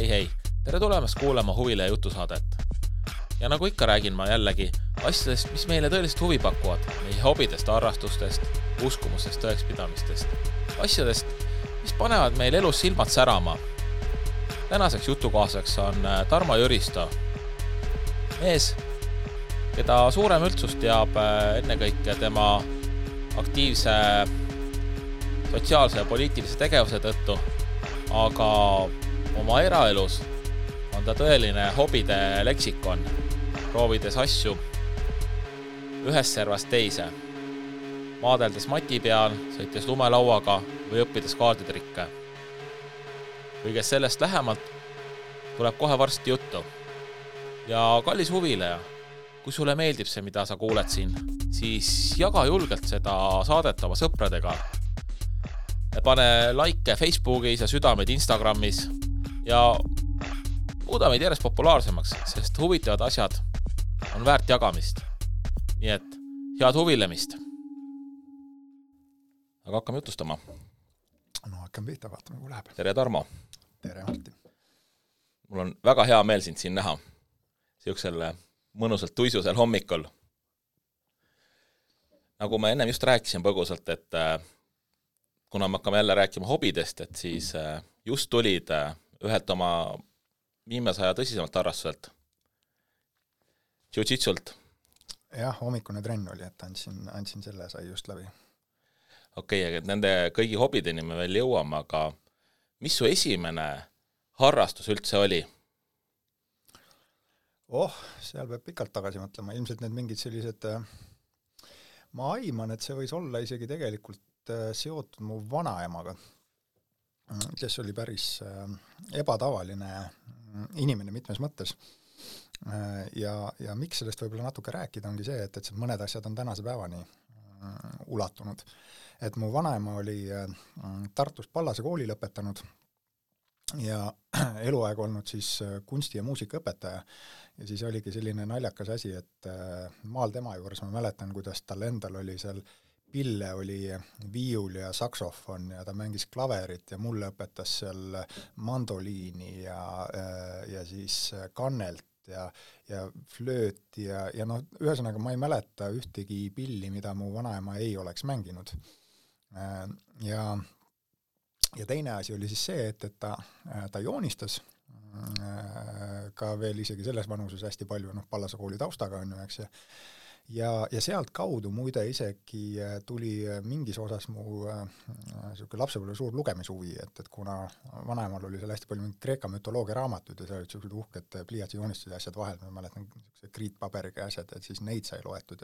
Hei, tere tulemast kuulama Huvile jutusaadet. Ja nagu ikka räägin ma jällegi asjadest, mis meile tõeliselt huvi pakuvad, meie hobidest, harrastustest, uskumustest, tõekspidamistest, asjadest, mis panevad meil elus silmad särama. Tänaseks jutukaaseks on Tarmo Jüristo, mees, keda suurem üldsus teab ennekõike tema aktiivse sotsiaalse ja poliitilise tegevuse tõttu, aga oma eraelus on ta tõeline hobide leksikon, proovides asju ühest servast teise, maadeldes mati peal, sõites lumelauaga või õppides kaarditrikke. Kõigest sellest lähemalt tuleb kohe varsti juttu. Ja kallis huvileja, kui sulle meeldib see, mida sa kuuled siin, siis jaga julgelt seda saadet oma sõpradega. Pane like Facebookis ja südamed Instagramis ja muuda meid järjest populaarsemaks, sest huvitavad asjad on väärt jagamist. Nii et head huvilemist. Aga hakkame jutustama. No hakkame pihta, vaatame, kui läheb. Tere Tarmo. Tere Martin. Mul on väga hea meel sind siin näha. Siuksel mõnusalt tuisusel hommikul. Nagu ma ennem just rääkisin põgusalt, et kuna me hakkame jälle rääkima hobidest, et siis just tulid ühelt oma viimase aja tõsisemalt harrastuselt. Jiu-jitsult. Jah, hommikune trenn oli, et andsin selle, sai just läbi. Okei, et nende kõigi hobideni me veel jõuame, aga mis su esimene harrastus üldse oli? Seal peab pikalt tagasi mõtlema. Ilmselt need mingid sellised, ma aiman, et see võis olla isegi tegelikult seotud mu vanaemaga, kes oli päris ebatavaline inimene mitmes mõttes. Ja miks sellest võib-olla natuke rääkida ongi see, et mõned asjad on tänase päevani ulatunud. Et mu vanaema oli Tartus Pallase kooli lõpetanud ja eluaeg olnud siis kunsti- ja muusikaõpetaja. Ja siis oligi selline naljakas asi, et maal tema juures ma mäletan, kuidas tal endal oli seal pille, oli viiul ja saksofon ja ta mängis klaverit ja mulle õpetas seal mandoliini ja siis kannelt ja flööt ja noh, ühesõnaga ma ei mäleta ühtegi pilli, mida mu vanaema ei oleks mänginud. Ja teine asi oli siis see, et ta joonistas ka veel isegi selles vanuses hästi palju, Pallase kooli taustaga on ju, eks ja sealt kaudu muide isegi tuli mingis osas mu lapsepõlve suur lugemishuvi, et kuna vanaemal oli seal hästi palju Kreeka mütoloogia raamatud ja seal olid sellised uhked pliiatsi joonistused ja asjad vahel, ma mäletan kriitpaberiga asjad, et siis neid sai loetud.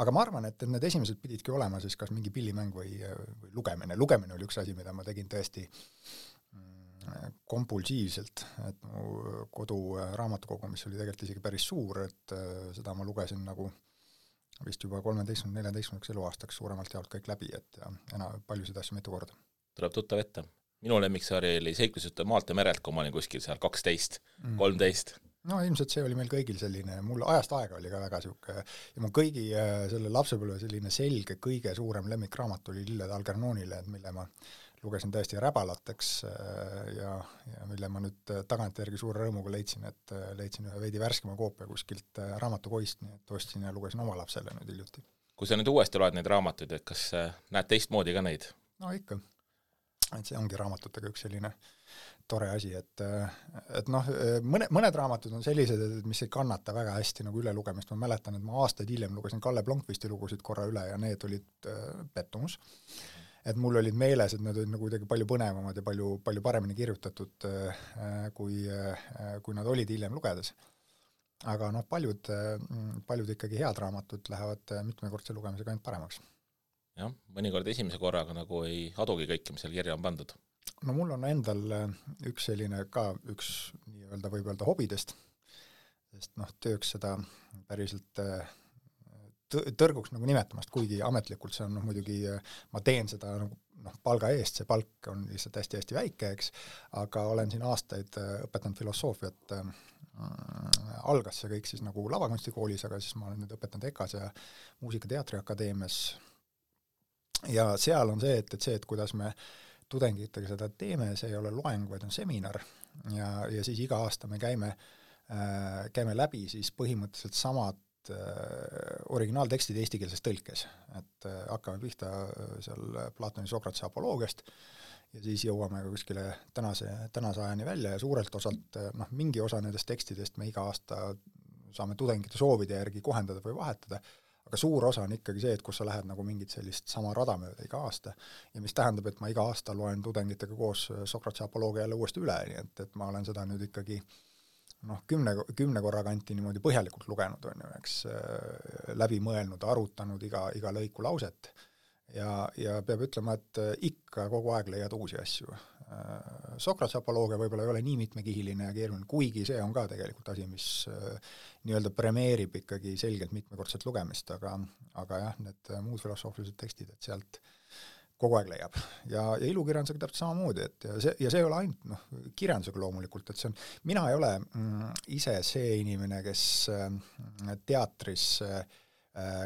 Aga ma arvan, et need esimesed pididki olema siis kas mingi pillimäng või lugemine. Lugemine oli üks asi, mida ma tegin tõesti kompulsiivselt, et mu kodu raamatukogu, mis oli tegelikult isegi päris suur, et seda ma lugesin nagu vist juba 13-14 eluaastaks suuremalt jaolt kõik läbi, et ja paljusid asju mitu korda. Tuleb tuttav ette. Minu lemmiksari oli seiklusjutt maalt ja merelt, kui ma olin kuskil seal 12, 13. No ilmselt see oli meil kõigil selline, mul ajast aega oli ka väga siuke ja mu kõigi selle lapsepõlve selline selge, kõige suurem lemmikraamat oli Lilled Algernonile, mille ma lugesin tõesti räbalateks ja mille ma nüüd tagantjärgi suure rõõmuga leidsin, et leidsin ühe veidi värskema koopia kuskilt raamatukoist, nii et ostsin ja lugesin oma lapsele nüüd hiljuti. Kui sa nüüd uuesti loed neid raamatuid, et kas näed teistmoodi ka neid? No ikka. Et see ongi raamatutega üks selline tore asi, et mõned raamatud on sellised, mis ei kannata väga hästi nagu üle lugemist. Ma mäletan, et ma aastaid hiljem lugesin Kalle Blomqvisti lugusid korra üle ja need olid pettumus. Et mul olid meeles, et need olid nagu kuidagi palju põnevamad ja palju paremini kirjutatud, kui nad olid hiljem lugedes. Aga paljud ikkagi head raamatud lähevad mitmekordse lugemisega ainult paremaks. Jah, mõnikord esimese korraga nagu ei adugi kõike, mis seal kirja on pandud. No mul on endal üks selline ka üks nii-öelda võib öelda hobidest, sest tööks seda päriselt tõrguks nagu nimetamast, kuigi ametlikult see on muidugi, ma teen seda palga eest, see palk on lihtsalt hästi-hästi väike, eks, aga olen siin aastaid õpetanud filosoofiat, algas see kõik siis nagu lavakunstikoolis, aga siis ma olen nüüd õpetanud EKAs ja Muusika- ja Teatriakadeemias ja seal on see, et kuidas me tudengitega seda teeme, see ei ole loeng, vaid on seminar ja siis iga aasta me käime läbi siis põhimõtteliselt samad originaaltekstid eestikeelses tõlkes, et hakkame pihta seal Platoni Sokratese apoloogiast ja siis jõuame ka kuskile tänase ajani välja ja suurelt osalt mingi osa nendest tekstidest me iga aasta saame tudengite soovide järgi kohendada või vahetada, aga suur osa on ikkagi see, et kus sa lähed nagu mingit sellist sama rada mööda iga aasta ja mis tähendab, et ma iga aasta loen tudengitega koos Sokratese apoloogia jälle uuesti üle, nii et ma olen seda nüüd ikkagi 10 korra kanti niimoodi põhjalikult lugenud, on ju, eks läbi mõelnud, arutanud iga lõiku lauset ja peab ütlema, et ikka kogu aeg leiad uusi asju. Sokratese apoloogia võib-olla ei ole nii mitmekihiline ja keeruline, kuigi see on ka tegelikult asi, mis nii-öelda premeerib ikkagi selgelt mitmekordset lugemist, aga jah, need muud filosoofilised tekstid, et sealt kogu aeg leiab. Ja ilukirjandusega täpselt samamoodi, et ja see ei ole ainult kirjandusega loomulikult, et see on, mina ei ole ise see inimene, kes teatris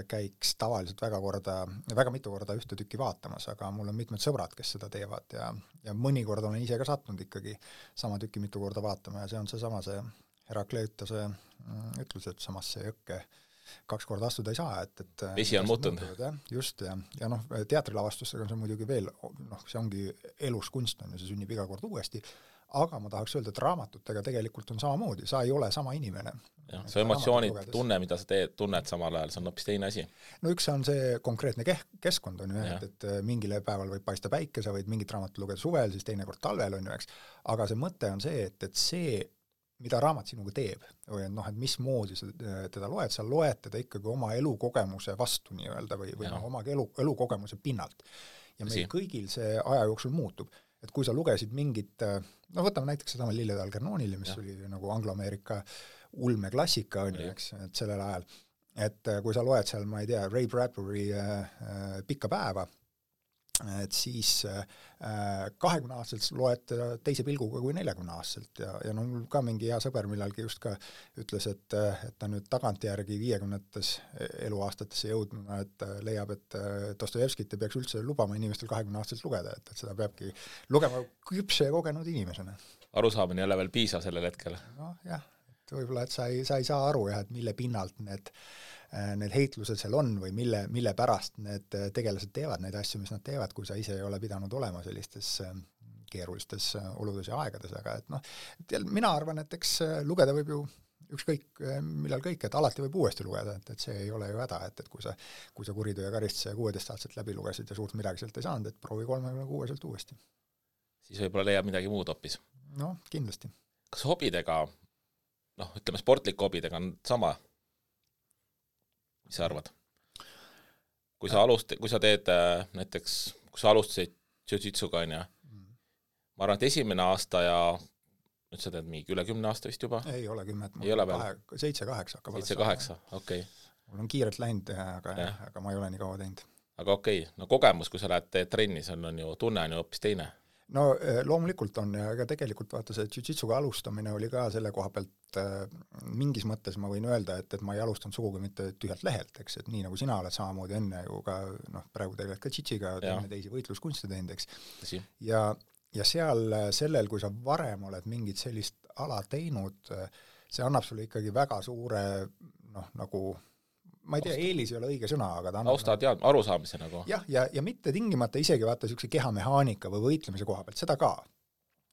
käiks tavaliselt väga mitu korda ühte tükki vaatamas, aga mul on mitmed sõbrad, kes seda teevad ja mõnikord olen ise ka sattunud ikkagi sama tükki mitu korda vaatama ja see on see Herakleitose ütlus, et samasse jõkke 2 korda astuda ei saa, et vesi on muutunud. Just, ja teatrilavastustega on see muidugi veel, see ongi elus kunst, on ja see sünnib iga kord uuesti, aga ma tahaks öelda, et raamatutega tegelikult on samamoodi, sa ei ole sama inimene. Ja, see emotsioonid, tunne, mida sa tunned samal ajal, see on hoopis teine asi. No üks on see konkreetne keskkond, on ju, et mingile päeval võib paista päike, sa võid mingit raamatut lugeda suvel, siis teine kord talvel, on ju, eks, aga see mõte on see, et see mida raamat sinuga teeb, või et mismoodi sa teda loed, sa loed teda ikkagi oma elukogemuse vastu nii-öelda või oma elukogemuse pinnalt. Ja meil kõigil see aja jooksul muutub. Et kui sa lugesid mingit, võtame näiteks seda Lillede Algernoonile, mis oli nagu Anglo-Ameerika ulmeklassika, on ju, eks, et sellel ajal, et kui sa loed seal, ma ei tea, Ray Bradbury Pikka päeva, et siis 20-aastaselt loed teise pilguga kui 40-aastaselt ja mul ka mingi hea sõber millalgi just ka ütles, et ta nüüd tagantjärgi 50-tes eluaastatesse jõudnuna, et leiab, et Dostojevskit ei peaks üldse lubama inimestel 20-aastaselt lugeda, et seda peabki lugema küpse ja kogenud inimesena. Arusaamine jälle veel piisav sellel hetkel. Jah, et võib-olla, et sa ei saa aru, et mille pinnalt need heitlused seal on või mille pärast need tegelased teevad neid asju, mis nad teevad, kui sa ise ei ole pidanud olema sellistes keerulistes oludes ja aegades, aga et mina arvan, et eks lugeda võib ju ükskõik millal kõik, et alati võib uuesti lugeda, et see ei ole ju häda, et kui sa Kuritöö ja karistuse 16-aastaselt läbi lugesid ja suurt midagi sealt ei saanud, et proovi 36-selt uuesti. Siis võib-olla leiab midagi muud hoopis. No, kindlasti. Kas hobidega, ütleme sportlik hobidega on sama? Mis sa arvad? Kui sa teed näiteks, kui sa alustasid jiu-jitsuga, ma arvan, et esimene aasta ja nüüd sa teed mingi üle 10 aasta vist juba? Ei ole 10, ei ole veel? 7-8 hakkab. 7-8, okei. Mul on kiirelt läinud, aga ma ei ole nii kaua teinud. Aga okei, kogemus, kui sa lähed trenni, see on ju tunne on ju hoopis teine. No loomulikult on ja tegelikult vaata see jiu-jitsuga alustamine oli ka selle koha pealt mingis mõttes ma võin öelda, et ma ei alustanud sugugi mitte tühjalt lehelt, eks, et nii nagu sina oled samamoodi enne ju ka, praegu tegeled ka jiu-jitsiga, teeme teisi võitluskunste teinud, eks. Ja seal sellel, kui sa varem oled mingit sellist ala teinud, see annab sulle ikkagi väga suure, nagu ma ei tea, eelis ei ole õige sõna, aga ta austad arusaamise nagu. Jah, ja mitte tingimata isegi vaata niisuguse kehamehaanika või võitlemise koha pealt, seda ka.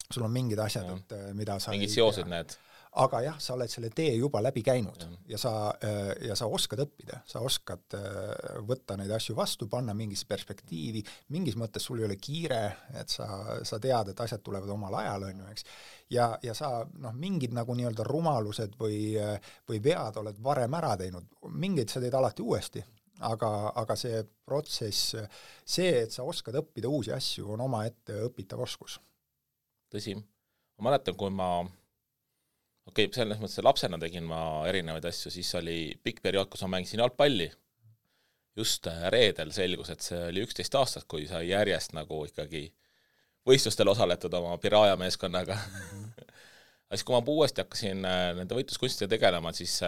Sul on mingid asjad, et mida sa mingid seosed need. Aga jah, sa oled selle tee juba läbi käinud ja sa oskad õppida, sa oskad võtta neid asju vastu, panna mingisse perspektiivi, mingis mõttes sul ei ole kiire, et sa tead, et asjad tulevad omal ajal, on ju, eks. Ja sa mingid nagu nii-öelda rumalused või vead oled varem ära teinud, mingeid sa teed alati uuesti, aga see protsess, see, et sa oskad õppida uusi asju, on omaette õpitav oskus. Tõsi, ma mäletan, kui ma selles mõttes lapsena tegin ma erinevaid asju, siis oli pikk periood, kus ma mängisin jalgpalli. Just reedel selgus, et see oli 11 aastat, kui sai järjest nagu ikkagi võistlustel osaletud oma Piraja meeskonnaga. Siis kui ma uuesti hakkasin nende võitluskunstidega tegelema, siis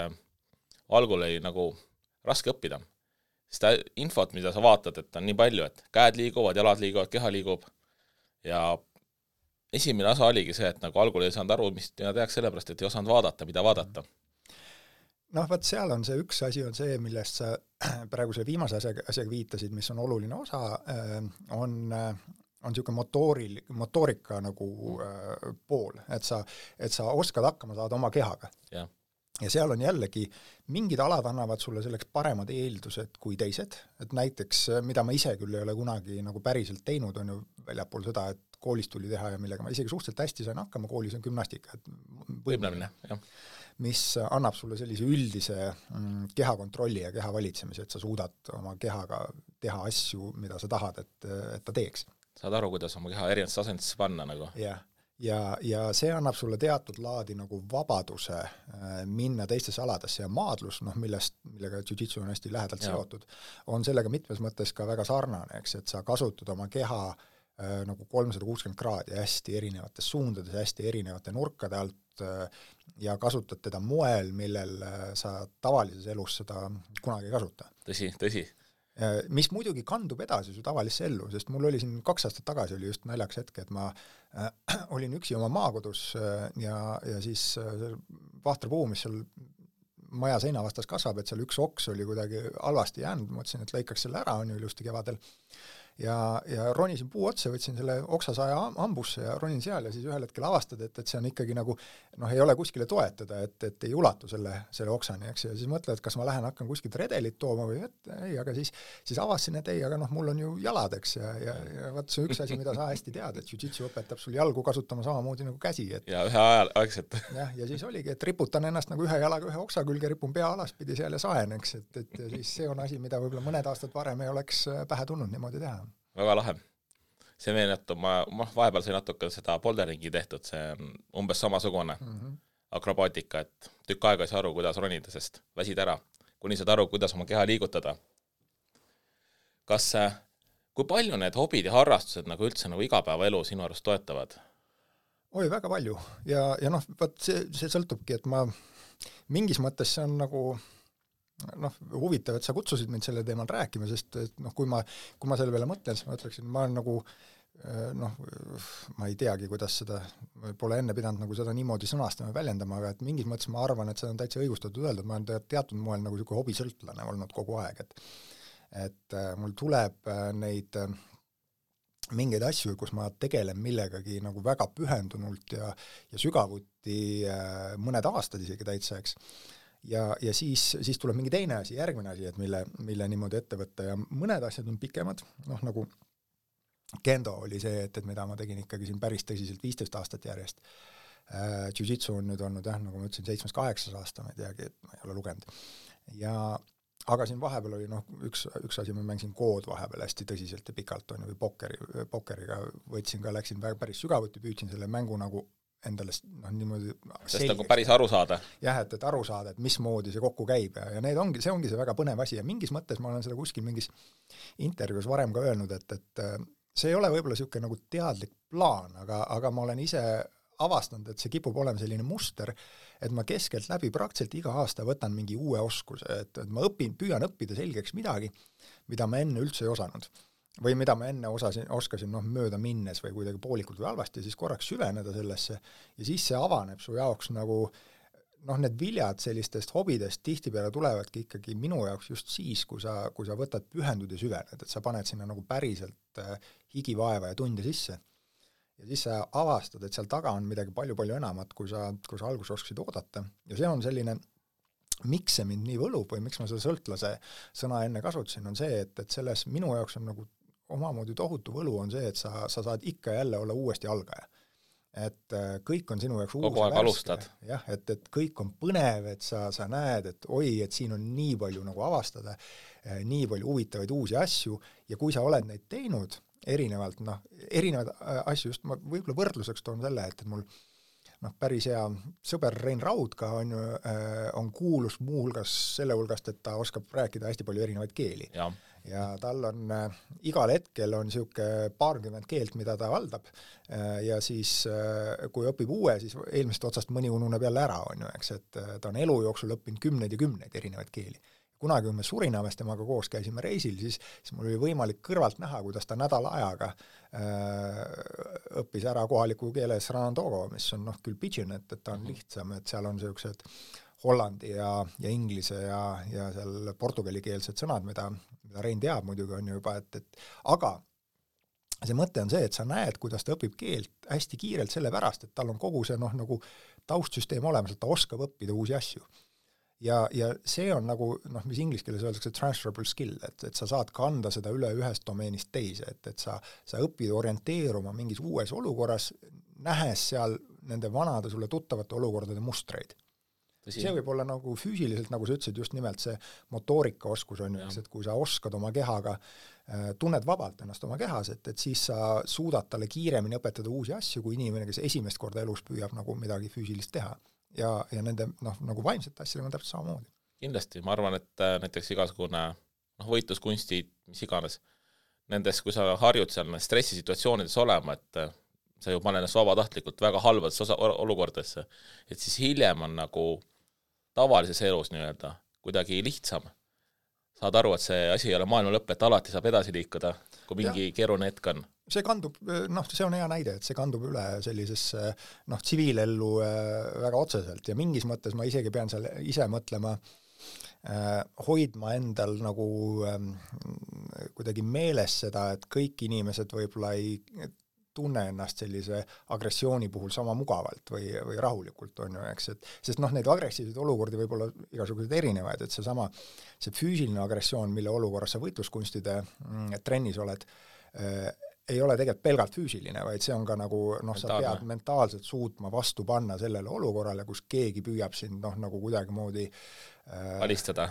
algul oli nagu raske õppida. Seda infot, mida sa vaatad, et on nii palju, et käed liiguvad, jalad liiguvad, keha liigub ja esimene osa oligi see, et nagu algul ei saanud aru, mis tehakse sellepärast, et ei osanud vaadata, mida vaadata. Noh, vaat seal on see üks asi on see, millest sa praegu selle viimase asjaga viitasid, mis on oluline osa, on niisugune motoorika nagu pool, et sa oskad hakkama saada oma kehaga. Ja seal on jällegi, mingid alad annavad sulle selleks paremad eeldused kui teised, et näiteks, mida ma ise küll ei ole kunagi nagu päriselt teinud, on ju väljapool seda, et koolis tuli teha ja millega ma isegi suhteliselt hästi sain hakkama, koolis on gümnastika, võimlemine, jah. Mis annab sulle sellise üldise kehakontrolli ja keha valitsemise, et sa suudad oma kehaga teha asju, mida sa tahad, et ta teeks. Saad aru, kuidas oma keha erinevates asendisse panna nagu. Ja see annab sulle teatud laadi nagu vabaduse minna teistesse aladesse ja maadlus, millega jiu-jitsu on hästi lähedalt seotud, on sellega mitmes mõttes ka väga sarnane, eks, et sa kasutad oma keha nagu 360 kraadi hästi erinevates suundades, hästi erinevate nurkade alt ja kasutad teda moel, millel sa tavalises elus seda kunagi ei kasuta. Tõsi. Mis muidugi kandub edasi su tavalisse ellu, sest mul oli siin 2 aastat tagasi oli just naljaks hetke, et ma olin üksi oma maakodus ja siis vahtra puu, mis seal maja seina vastas kasvab, et seal üks oks oli kuidagi halvasti jäänud, ma mõtlesin, et lõikaks selle ära, on ju ilusti kevadel. Ja ronisin puu otsa, võtsin selle oksasaja hambusse ja ronin seal ja siis ühel hetkel avastad, et see on ikkagi nagu, ei ole kuskile toetada, et ei ulatu selle oksani, eks, ja siis mõtled, et kas ma hakkan kuskilt redelit tooma või ei, aga siis avasin, et ei, aga mul on ju jalad, eks, ja vaat see üks asi, mida sa hästi tead, et jiu-jitsu õpetab sul jalgu kasutama samamoodi nagu käsi. Ja ühe aegselt. Ja siis oligi, et riputan ennast nagu ühe jalaga ühe oksa külge, ripun pea alaspidi seal ja saen, eks, et siis see on asi, mida võib-olla mõned aastad varem ei oleks pähe tulnud niimoodi teha. Väga lahe. See meenutab, ma vahepeal sai natuke seda boulderingi tehtud, see on umbes samasugune akrobaatika, et tükk aega ei saa aru, kuidas ronida, sest väsid ära, kuni saad aru, kuidas oma keha liigutada. Kui palju need hobid ja harrastused nagu üldse nagu igapäevaelu sinu arust toetavad? Oi, väga palju. Ja see sõltubki, et ma mingis mõttes see on nagu huvitav, et sa kutsusid mind selle teemal rääkima, sest kui ma selle peale mõtlen, siis ma ütleksin, ma olen nagu ma ei teagi, kuidas seda pole enne pidanud nagu seda niimoodi sõnastama ja väljendama, aga et mingis mõttes ma arvan, et seda on täitsa õigustatud öelda, et ma olen teatud moel nagu selline hobisõltlane olnud kogu aeg, et mul tuleb neid mingeid asju, kus ma tegelen millegagi nagu väga pühendunult ja sügavuti mõned aastad isegi täitsa, eks. Ja siis tuleb mingi teine asi, järgmine asi, et mille niimoodi ette võtta ja mõned asjad on pikemad, nagu kendo oli see, et mida ma tegin ikkagi siin päris tõsiselt 15 aastat järjest. Jiu-jitsu on nüüd olnud, nagu ma ütlesin, 7-8 aasta, ma ei teagi, et ma ei ole lugenud. Aga siin vahepeal oli üks asi, ma mängisin kood vahepeal hästi tõsiselt ja pikalt, või pokkeriga võtsin ka, läksin päris sügavuti, püüdsin selle mängu nagu endale niimoodi sest nagu päris aru saada. Jah, et aru saada, et mismoodi see kokku käib ja see ongi see väga põnev asi ja mingis mõttes ma olen seda kuskil mingis intervjuus varem ka öelnud, et see ei ole võib-olla niisugune nagu teadlik plaan, aga ma olen ise avastanud, et see kipub olema selline muster, et ma keskelt läbi praktiliselt iga aasta võtan mingi uue oskuse, et ma püüan õppida selgeks midagi, mida ma enne üldse ei osanud. Või mida ma enne oskasin mööda minnes või kuidagi poolikult või halvasti, siis korraks süveneda sellesse ja siis see avaneb su jaoks nagu need viljad sellistest hobidest tihtipeale tulevadki ikkagi minu jaoks just siis, kui sa võtad pühendud ja süvened, et sa paned sinna nagu päriselt higivaeva ja tunde sisse. Ja siis sa avastad, et seal taga on midagi palju-palju enamat, kui sa alguses oskasid oodata. Ja see on selline, miks see mind nii võlub või miks ma seda sõltlase sõna enne kasutasin, on see, et selles minu jaoks on nagu omamoodi tohutu võlu on see, et sa saad ikka jälle olla uuesti algaja. Et kõik on sinu jaoks kogu aeg alustad. Jah, et kõik on põnev, et sa näed, et et siin on nii palju nagu avastada, nii palju huvitavaid uusi asju ja kui sa oled neid teinud erinevad asju, just ma võib-olla võrdluseks toon selle, et mul päris hea sõber Rein Raudka on kuulus muu hulgas selle hulgast, et ta oskab rääkida hästi palju erinevaid keeli. Ja tal on igal hetkel on niisugune 20 keelt, mida ta valdab ja siis kui õpib uue, siis eelmisest otsast mõni ununeb jälle ära, eks, et ta on elu jooksul õppinud 10 ja 10 erinevaid keeli. kunagi, kui me Surinamest temaga koos käisime reisil, siis mul oli võimalik kõrvalt näha, kuidas ta nädala ajaga õppis ära kohaliku keele Sranandogo, mis on küll pidžin, et ta on lihtsam, et seal on sellised hollandi ja inglise ja seal portugalikeelsed sõnad, mida Rein teab muidugi on ju juba, aga see mõte on see, et sa näed, kuidas ta õpib keelt hästi kiirelt sellepärast, et tal on kogu see nagu taustsüsteem olemas, et ta oskab õppida uusi asju. Ja see on nagu, mis inglise keeles öeldakse transferable skill, et sa saad kanda seda üle ühest domeenist teise, et sa õpid orienteeruma mingis uues olukorras, nähes seal nende vanade sulle tuttavate olukordade mustreid. See võib olla nagu füüsiliselt, nagu sa ütlesid, just nimelt see motoorikaoskus on ju, et kui sa oskad oma kehaga, tunned vabalt ennast oma kehas, et siis sa suudad talle kiiremini õpetada uusi asju, kui inimene, kes esimest korda elus püüab nagu midagi füüsilist teha. Ja nende nagu vaimsete asjadega on täpselt samamoodi. Kindlasti, ma arvan, et näiteks igasugune võitluskunstid, mis iganes, nendes, kui sa harjud seal stressisituatsioonides olema, et sa ju paned ennast vabatahtlikult väga halbades olukordadesse, et siis hiljem on nagu tavalises elus nii-öelda kuidagi lihtsam. Saad aru, et see asi ei ole maailma lõpp, et alati saab edasi liikuda, kui mingi keeruline hetk on. See kandub, see on hea näide, et see kandub üle sellisesse tsiviilellu väga otseselt ja mingis mõttes ma isegi pean seal ise mõtlema, hoidma endal nagu kuidagi meeles seda, et kõik inimesed võib-olla ei tunne ennast sellise agressiooni puhul sama mugavalt või rahulikult on ju, eks, sest neid agressiivseid olukordi võib olla igasuguseid erinevaid, et see füüsiline agressioon, mille olukorras sa võitluskunstide trennis oled, ei ole tegelikult pelgalt füüsiline, vaid see on ka nagu, sa pead mentaalselt suutma vastu panna sellele olukorrale, kus keegi püüab sind nagu kuidagimoodi alistada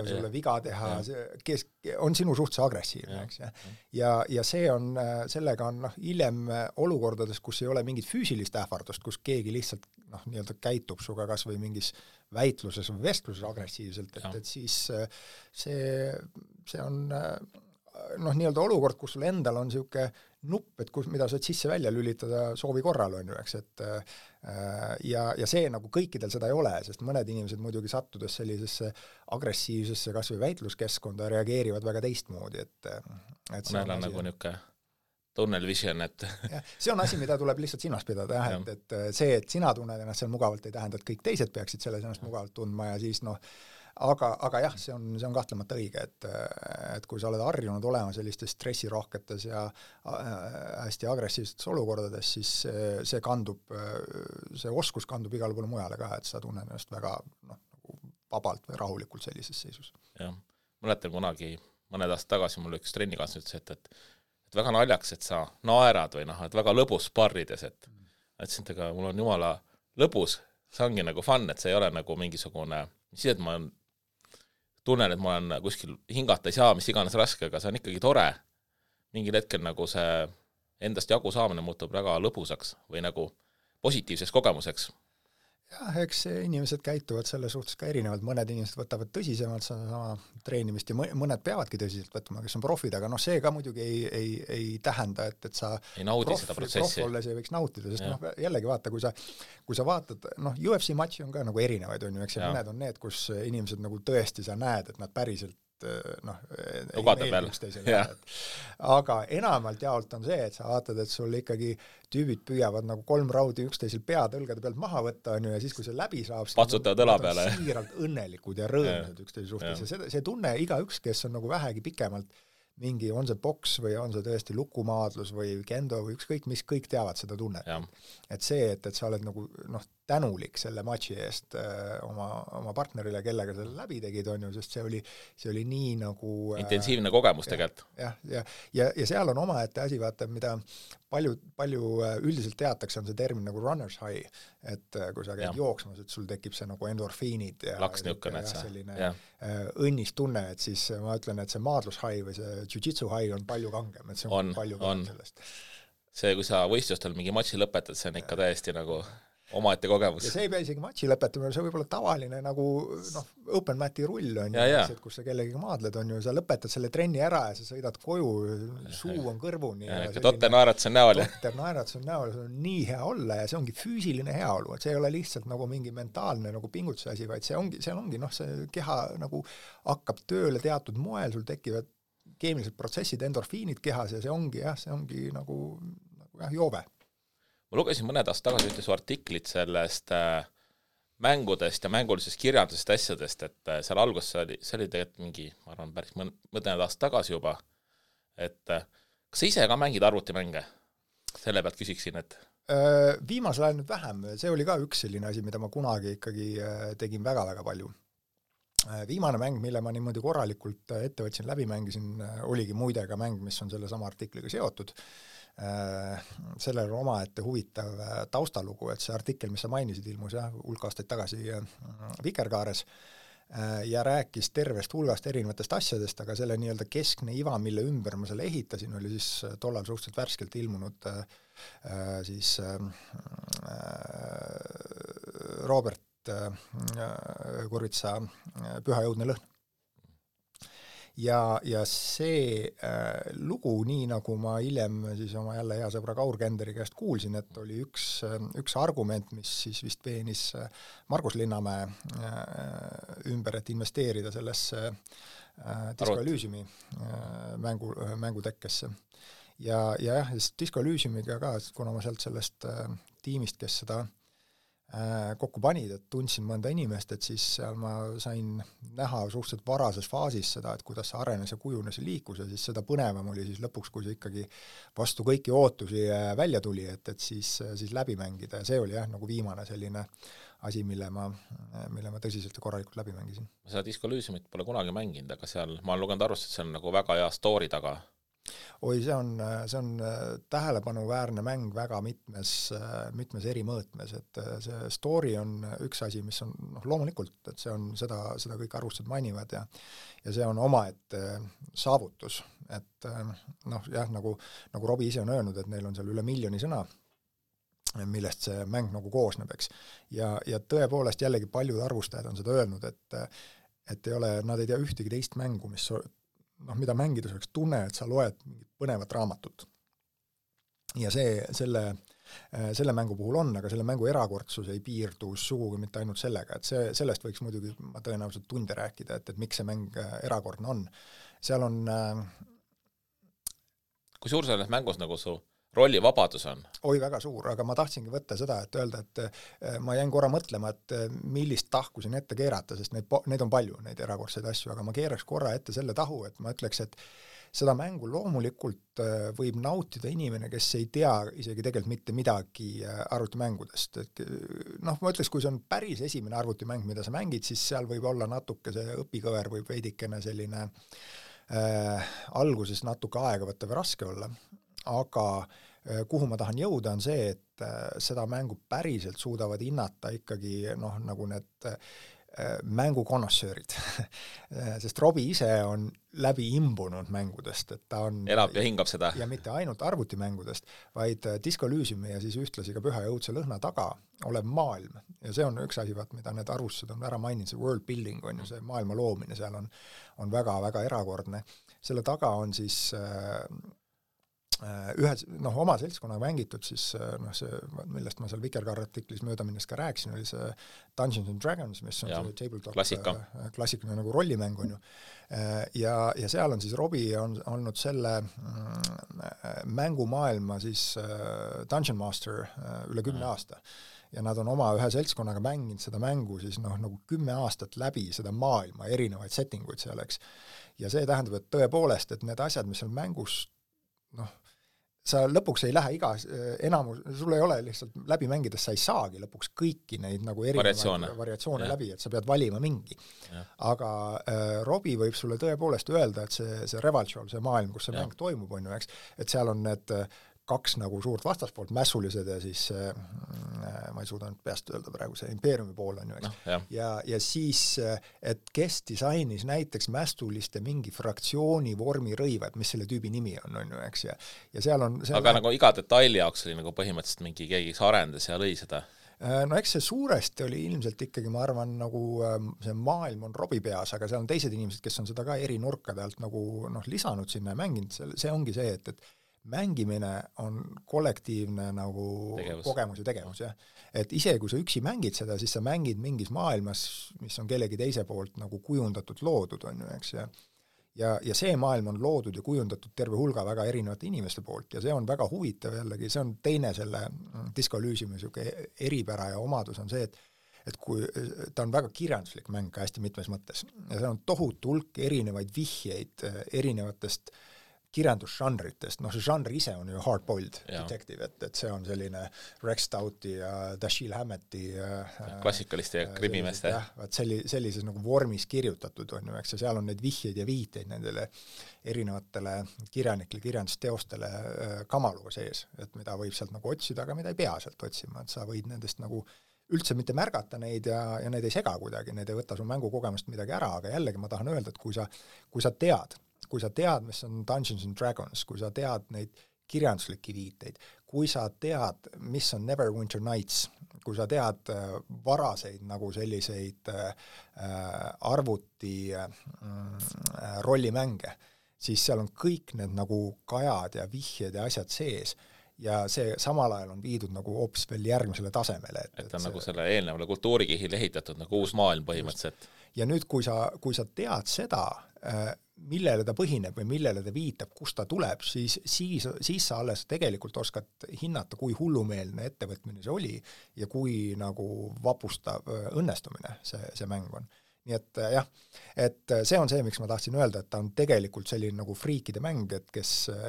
sulle viga teha, kes on sinu suhtes agressiivne, eks. Ja see on, sellega on hiljem olukordades, kus ei ole mingit füüsilist ähvardust, kus keegi lihtsalt nii-öelda käitub suga kas või mingis väitluses või vestluses agressiivselt, et siis see on nii-öelda olukord, kus sul endal on siuke nupp, et mida saad sisse välja lülitada soovi korral on ju, eks, et ja see nagu kõikidel seda ei ole, sest mõned inimesed muidugi sattudes sellisesse agressiivsesse kas või väitluskeskkonda reageerivad väga teistmoodi, et mõnel on nagu niuke tunnel vision, et see on asi, mida tuleb lihtsalt silmas pidada, et see, et sina tunned ennast seal mugavalt, ei tähenda, et kõik teised peaksid selles ennast mugavalt tundma ja siis aga jah, see on kahtlemata õige, et kui sa oled harjunud olema sellistes stressirohketes ja hästi agressiivsetes olukordades, siis see oskus kandub igale poole mujale ka, et sa tunned ennast väga nagu vabalt või rahulikult sellises seisus. Jah, mäletan kunagi mõned aastad tagasi mul üks trennikaaslane ütles, et väga naljaks, et sa naerad või et väga lõbus sparrides, et ütlesin, et mul on jumala lõbus, see ongi nagu fun, et see ei ole nagu mingisugune, siis et ma tunnen, et ma olen kuskil hingata ei saa, mis iganes raske, aga see on ikkagi tore. Mingil hetkel nagu see endast jagu saamine muutub väga lõbusaks või nagu positiivseks kogemuseks. Jah, eks inimesed käituvad selle suhtes ka erinevalt, mõned inimesed võtavad tõsisemalt sama treenimist ja mõned peavadki tõsiselt võtma, kes on profid, aga see ka muidugi ei tähenda, et sa ei naudi seda protsessi. Prof olles ei võiks nautida, sest jällegi vaata, kui sa vaatad, UFC matši on ka nagu erinevaid, on ju, eks mõned on need, kus inimesed nagu tõesti sa näed, et nad päriselt ei meeldi üksteisele. Aga enamalt jaolt on see, et sa vaatad, et sul ikkagi tüübid püüavad nagu 3 raudi üksteisel pead õlgade pealt maha võtta, on ju, ja siis, kui see läbi saab, patsutavad õla peale. Siiralt õnnelikud ja rõõmsad üksteise suhtes. Ja see tunne igaüks, kes on nagu vähegi pikemalt mingi, on see boks või on see tõesti lukumaadlus või kendo või ükskõik, mis kõik teavad seda tunnet. Et see, et sa oled nagu tänulik selle matši eest oma partnerile, kellega selle läbi tegid, on ju, sest see oli nii nagu intensiivne kogemus tegelikult. Ja seal on omaette asi, vaata, mida palju üldiselt teatakse, on see termin nagu runner's high, et kui sa käid jooksmas, et sul tekib see nagu endorfiinid ja selline õnnis tunne, et siis ma ütlen, et see maadlus high või see jiu-jitsu high on palju kangem, et see on palju kangem sellest. See, kui sa võistlustel mingi matši lõpetad, see on ikka täiesti nagu omaette kogemus. Ja see ei pea isegi matši lõpetamine, see võib olla tavaline nagu open mati rull on ju, kus sa kellegagi maadled on ju, sa lõpetad selle trenni ära ja sa sõidad koju, suu on kõrvuni. Totter naeratus on näol. Totter naeratus on näol, see on nii hea olla ja see ongi füüsiline heaolu, et see ei ole lihtsalt nagu mingi mentaalne nagu pingutuse asi, vaid seal ongi see keha nagu hakkab tööle teatud moel, sul tekivad keemilised protsessid, endorfiinid kehas ja see ongi nagu joove. Ma lugesin mõned aastad tagasi ühte su artiklit sellest mängudest ja mängulisest kirjandusest asjadest, et seal alguses see oli tegelikult mingi, ma arvan, päris mõned aastad tagasi juba, et kas sa ise ka mängid arvutimänge? Selle pealt küsiksin, et viimasel ajal nüüd vähem, see oli ka üks selline asi, mida ma kunagi ikkagi tegin väga-väga palju. Viimane mäng, mille ma niimoodi korralikult ette võtsin, läbi mängisin, oligi muide ka mäng, mis on selle sama artikliga seotud. Sellel on omaette huvitav taustalugu, et see artikkel, mis sa mainisid, ilmus hulk aastaid tagasi Vikerkaares ja rääkis tervest hulgast erinevatest asjadest, aga selle nii-öelda keskne iva, mille ümber ma selle ehitasin, oli siis tollal suhteliselt värskelt ilmunud siis Robert Kurvitsa Püha jõudne lõhn. Ja see lugu, nii nagu ma hiljem siis oma jälle hea sõbra Kaur Kenderi käest kuulsin, et oli üks argument, mis siis vist veenis Margus Linnamäe ümber, et investeerida sellesse Disco Elysiumi mängutekkesse. Ja Disco Elysiumiga ka, kuna ma sealt sellest tiimist, kes seda kokku panid, et tundsin mõnda inimest, et siis seal ma sain näha suhteliselt varases faasis seda, et kuidas see arenes ja kujunes ja liikus ja siis seda põnevam oli siis lõpuks, kui see ikkagi vastu kõiki ootusi välja tuli, et siis läbi mängida ja see oli nagu viimane selline asi, mille ma tõsiselt ja korralikult läbi mängisin. Ma seda Disco Elysiumit pole kunagi mänginud, aga seal ma olen lugenud arvust, et see on nagu väga hea story taga. Oi, see on tähelepanuväärne mäng väga mitmes eri mõõtmes, et see story on üks asi, mis on loomulikult, et see on seda kõik arvustused mainivad ja see on omaette saavutus, et nagu Robbie ise on öelnud, et neil on seal üle 1 miljoni sõna, millest see mäng nagu koosneb, eks. Ja tõepoolest jällegi paljud arvustajad on seda öelnud, et nad ei tea ühtegi teist mängu, mida mängides oleks tunne, et sa loed mingit põnevat raamatut. Ja selle mängu puhul on, aga selle mängu erakordsus ei piirdu sugugi mitte ainult sellega, et sellest võiks muidugi ma tõenäoliselt tunde rääkida, et miks see mäng erakordne on. Seal on kui suur selles mängus nagu su rollivabadus on? Oi, väga suur, aga ma tahtsingi võtta seda, et öelda, et ma jäin korra mõtlema, et millist tahku siin ette keerata, sest neid on palju, neid erakordseid asju, aga ma keeraks korra ette selle tahu, et ma ütleks, et seda mängu loomulikult võib nautida inimene, kes ei tea isegi tegelikult mitte midagi arvutimängudest. Ma ütleks, kui see on päris esimene arvutimäng, mida sa mängid, siis seal võib olla natuke see õpikõver võib veidikene selline alguses natuke aega võtta või raske olla. Aga kuhu ma tahan jõuda on see, et seda mängu päriselt suudavad hinnata ikkagi nagu need mängukonnoissöörid. Sest Robbie ise on läbi imbunud mängudest, et ta on elab ja hingab seda. Ja mitte ainult arvutimängudest, vaid Disco Elysiumi ja siis ühtlasi ka Püha jõudse lõhna taga olev maailm. Ja see on üks asi, mida need arvustused on ära maininud, see world building on ju see maailma loomine, seal on väga-väga erakordne. Selle taga on siis oma seltskonnaga mängitud, siis see, millest ma seal Vikerkaare artiklis mööda minnes ka rääkisin, oli see Dungeons and Dragons, mis on see tabletop klassikaline nagu rollimäng on ju. Ja seal on siis Robbie on olnud selle mängumaailma siis Dungeon Master üle 10 aasta. Ja nad on oma ühe seltskonnaga mänginud seda mängu siis nagu 10 aastat läbi seda maailma, erinevaid settinguid seal, eks. Ja see tähendab, et tõepoolest, et need asjad, mis on mängus sa lõpuks ei lähe enamus, sul ei ole lihtsalt läbi mängides, sa ei saagi lõpuks kõiki neid nagu erinevaid variatsioone läbi, et sa pead valima mingi. Ja. Aga Robbie võib sulle tõepoolest öelda, et see Revalchol, see maailm, kus see mäng toimub, on ju, eks, et seal on need 2 nagu suurt vastaspoolt, mässulised ja siis ma ei suuda nüüd peast öelda praegu, see impeeriumi pool on ju, eks. Ja siis, et kes disainis näiteks mästuliste mingi fraktsiooni vormi rõivad, mis selle tüübi nimi on ju, eks, ja seal on... Aga nagu iga detaili jaoks oli nagu põhimõtteliselt mingi keegi arendas ja lõi seda? No eks see suuresti oli ilmselt ikkagi, ma arvan, nagu see maailm on Robbie peas, aga seal on teised inimesed, kes on seda ka eri nurkade alt nagu lisanud sinna ja mänginud, see ongi see, et mängimine on kollektiivne nagu kogemus ja tegevus, jah. Et isegi kui sa üksi mängid seda, siis sa mängid mingis maailmas, mis on kellegi teise poolt nagu kujundatud loodud, on ju, eks, ja see maailm on loodud ja kujundatud terve hulga väga erinevate inimeste poolt ja see on väga huvitav jällegi, see on teine selle Disco Elysiumi eripära ja omadus on see, et kui ta on väga kirjanduslik mäng ka hästi mitmes mõttes ja see on tohutu hulk erinevaid vihjeid erinevatest kirjandusžanritest, see žanr ise on ju hard-boiled detective, et see on selline Rex Stouti ja Dashiell Hammeti klassikaliste ja krimimeeste. Sellises nagu vormis kirjutatud on ju, eks, ja seal on neid vihjeid ja viiteid nendele erinevatele kirjanikele, kirjandusteostele kamaluga sees, et mida võib sealt nagu otsida, aga mida ei pea sealt otsima, et sa võid nendest nagu üldse mitte märgata neid ja neid ei sega kuidagi, need ei võta su mängukogemust midagi ära, aga jällegi ma tahan öelda, et kui sa tead, mis on Dungeons and Dragons, kui sa tead neid kirjanduslikke viiteid, kui sa tead, mis on Neverwinter Nights, kui sa tead varaseid nagu selliseid arvuti rollimänge, siis seal on kõik need nagu kajad ja vihjed ja asjad sees ja see samal ajal on viidud nagu hoopis veel järgmisele tasemele. Et on nagu selle eelnevale kultuurikihil ehitatud nagu uus maailm põhimõtteliselt. Ja nüüd, kui sa tead seda, millele ta põhineb või millele ta viitab, kust ta tuleb, siis sa alles tegelikult oskad hinnata, kui hullumeelne ettevõtmine see oli ja kui nagu vapustav õnnestumine see mäng on. Nii et jah, et see on see, miks ma tahtsin öelda, et ta on tegelikult selline nagu friikide mäng, et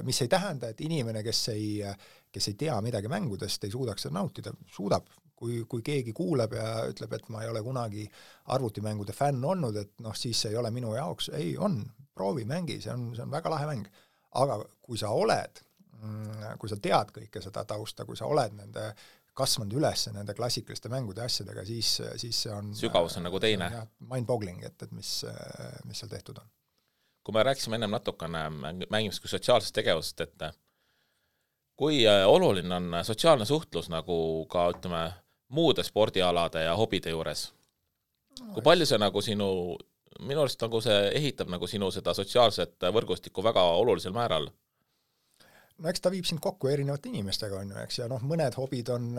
mis ei tähenda, et inimene, kes ei tea midagi mängudest, ei suudaks seda nautida, suudab. Kui keegi kuuleb ja ütleb, et ma ei ole kunagi arvutimängude fänn olnud, et siis see ei ole minu jaoks, ei on, proovi, mängi, see on väga lahe mäng. Aga kui sa tead kõike seda tausta, kui sa oled kasvanud üles nende klassikaliste mängude asjadega, siis see on sügavus on nagu teine. Mind-boggling, et mis seal tehtud on. Kui me rääkisime ennem natukene mängimist kui sotsiaalsest tegevust, et kui oluline on sotsiaalne suhtlus nagu ka, ütleme, muude spordialade ja hobide juures? Kui palju see nagu minu arust nagu see ehitab nagu sinu seda sotsiaalset võrgustikku väga olulisel määral? No eks ta viib sind kokku erinevate inimestega, on ju, eks, ja mõned hobid on,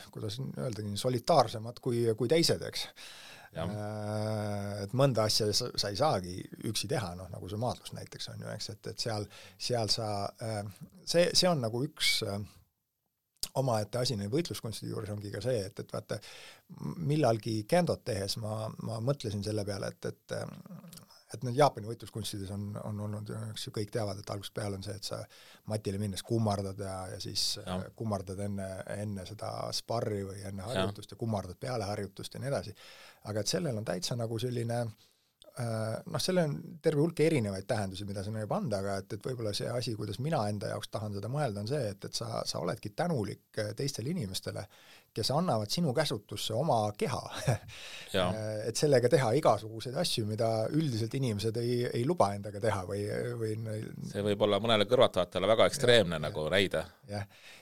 kuidas öelda, solitaarsemad kui teised, eks. Et mõnda asja sa ei saagi üksi teha, nagu see maadlus näiteks on ju, eks, et seal sa, see on nagu üks omaette asi neid võitluskunstide juures ongi ka see, et vaata, millalgi Kendot tehes ma mõtlesin selle peale, et need Jaapani võitluskunstides on olnud, eks ju kõik teavad, et algusest peale on see, et sa matile minnes kummardad ja siis kummardad enne seda sparri või enne harjutust ja kummardad peale harjutust ja nii edasi. Aga et sellel on täitsa nagu selline, sellel on terve hulk erinevaid tähendusi, mida sa võib anda, aga et võib-olla see asi, kuidas mina enda jaoks tahan seda mõelda, on see, et sa oledki tänulik teistele inimestele, kes annavad sinu käsutusse oma keha. Et sellega teha igasuguseid asju, mida üldiselt inimesed ei luba endaga teha või see võib olla mõnele kõrvatajatele väga ekstreemne nagu räide.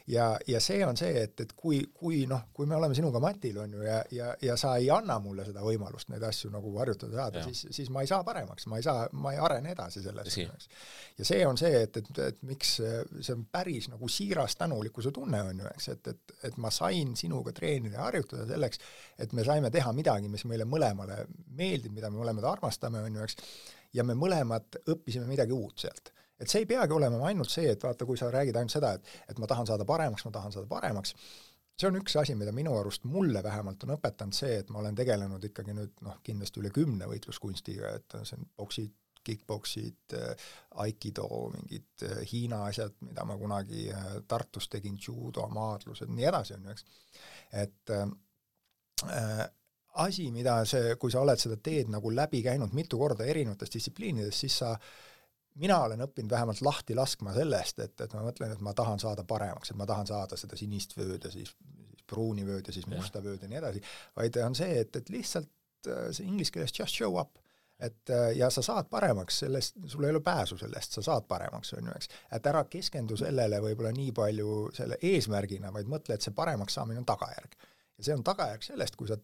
Ja see on see, et kui me oleme sinuga matil on ju ja sa ei anna mulle seda võimalust neid asju nagu harjutada saada, siis ma ei saa paremaks, ma ei arene edasi selles. Ja see on see, et miks see on päris nagu siiras tänulikkuse tunne on ju, eks, et ma sain sinuga treenida ja harjutada selleks, et me saime teha midagi, mis meile mõlemale meeldib, mida me mõlemad armastame, on ju, eks, ja me mõlemad õppisime midagi uut sealt. Et see ei peagi olema ainult see, et vaata, kui sa räägid ainult seda, et ma tahan saada paremaks, see on üks asi, mida minu arust mulle vähemalt on õpetanud see, et ma olen tegelenud ikkagi nüüd kindlasti üle 10 võitluskunstiga, et see on boksid, kickboksid, aikido, mingid Hiina asjad, mida ma kunagi Tartus tegin, judo, maadlused, nii edasi on ju, eks. Et asi, mida kui sa oled seda teed nagu läbi käinud mitu korda erinevates distsipliinides, siis mina olen õppinud vähemalt lahti laskma sellest, et ma mõtlen, et ma tahan saada paremaks, et ma tahan saada seda sinist vööd ja siis pruuni vööd ja siis musta vööd ja nii edasi, vaid on see, et lihtsalt see inglise keeles just show up. Ja sa saad paremaks sellest, sul ei ole pääsu sellest, sa saad paremaks, on ju, eks. Et ära keskendu sellele võib-olla nii palju selle eesmärgina, vaid mõtle, et see paremaks saamine on tagajärg. Ja see on tagajärg sellest, kui sa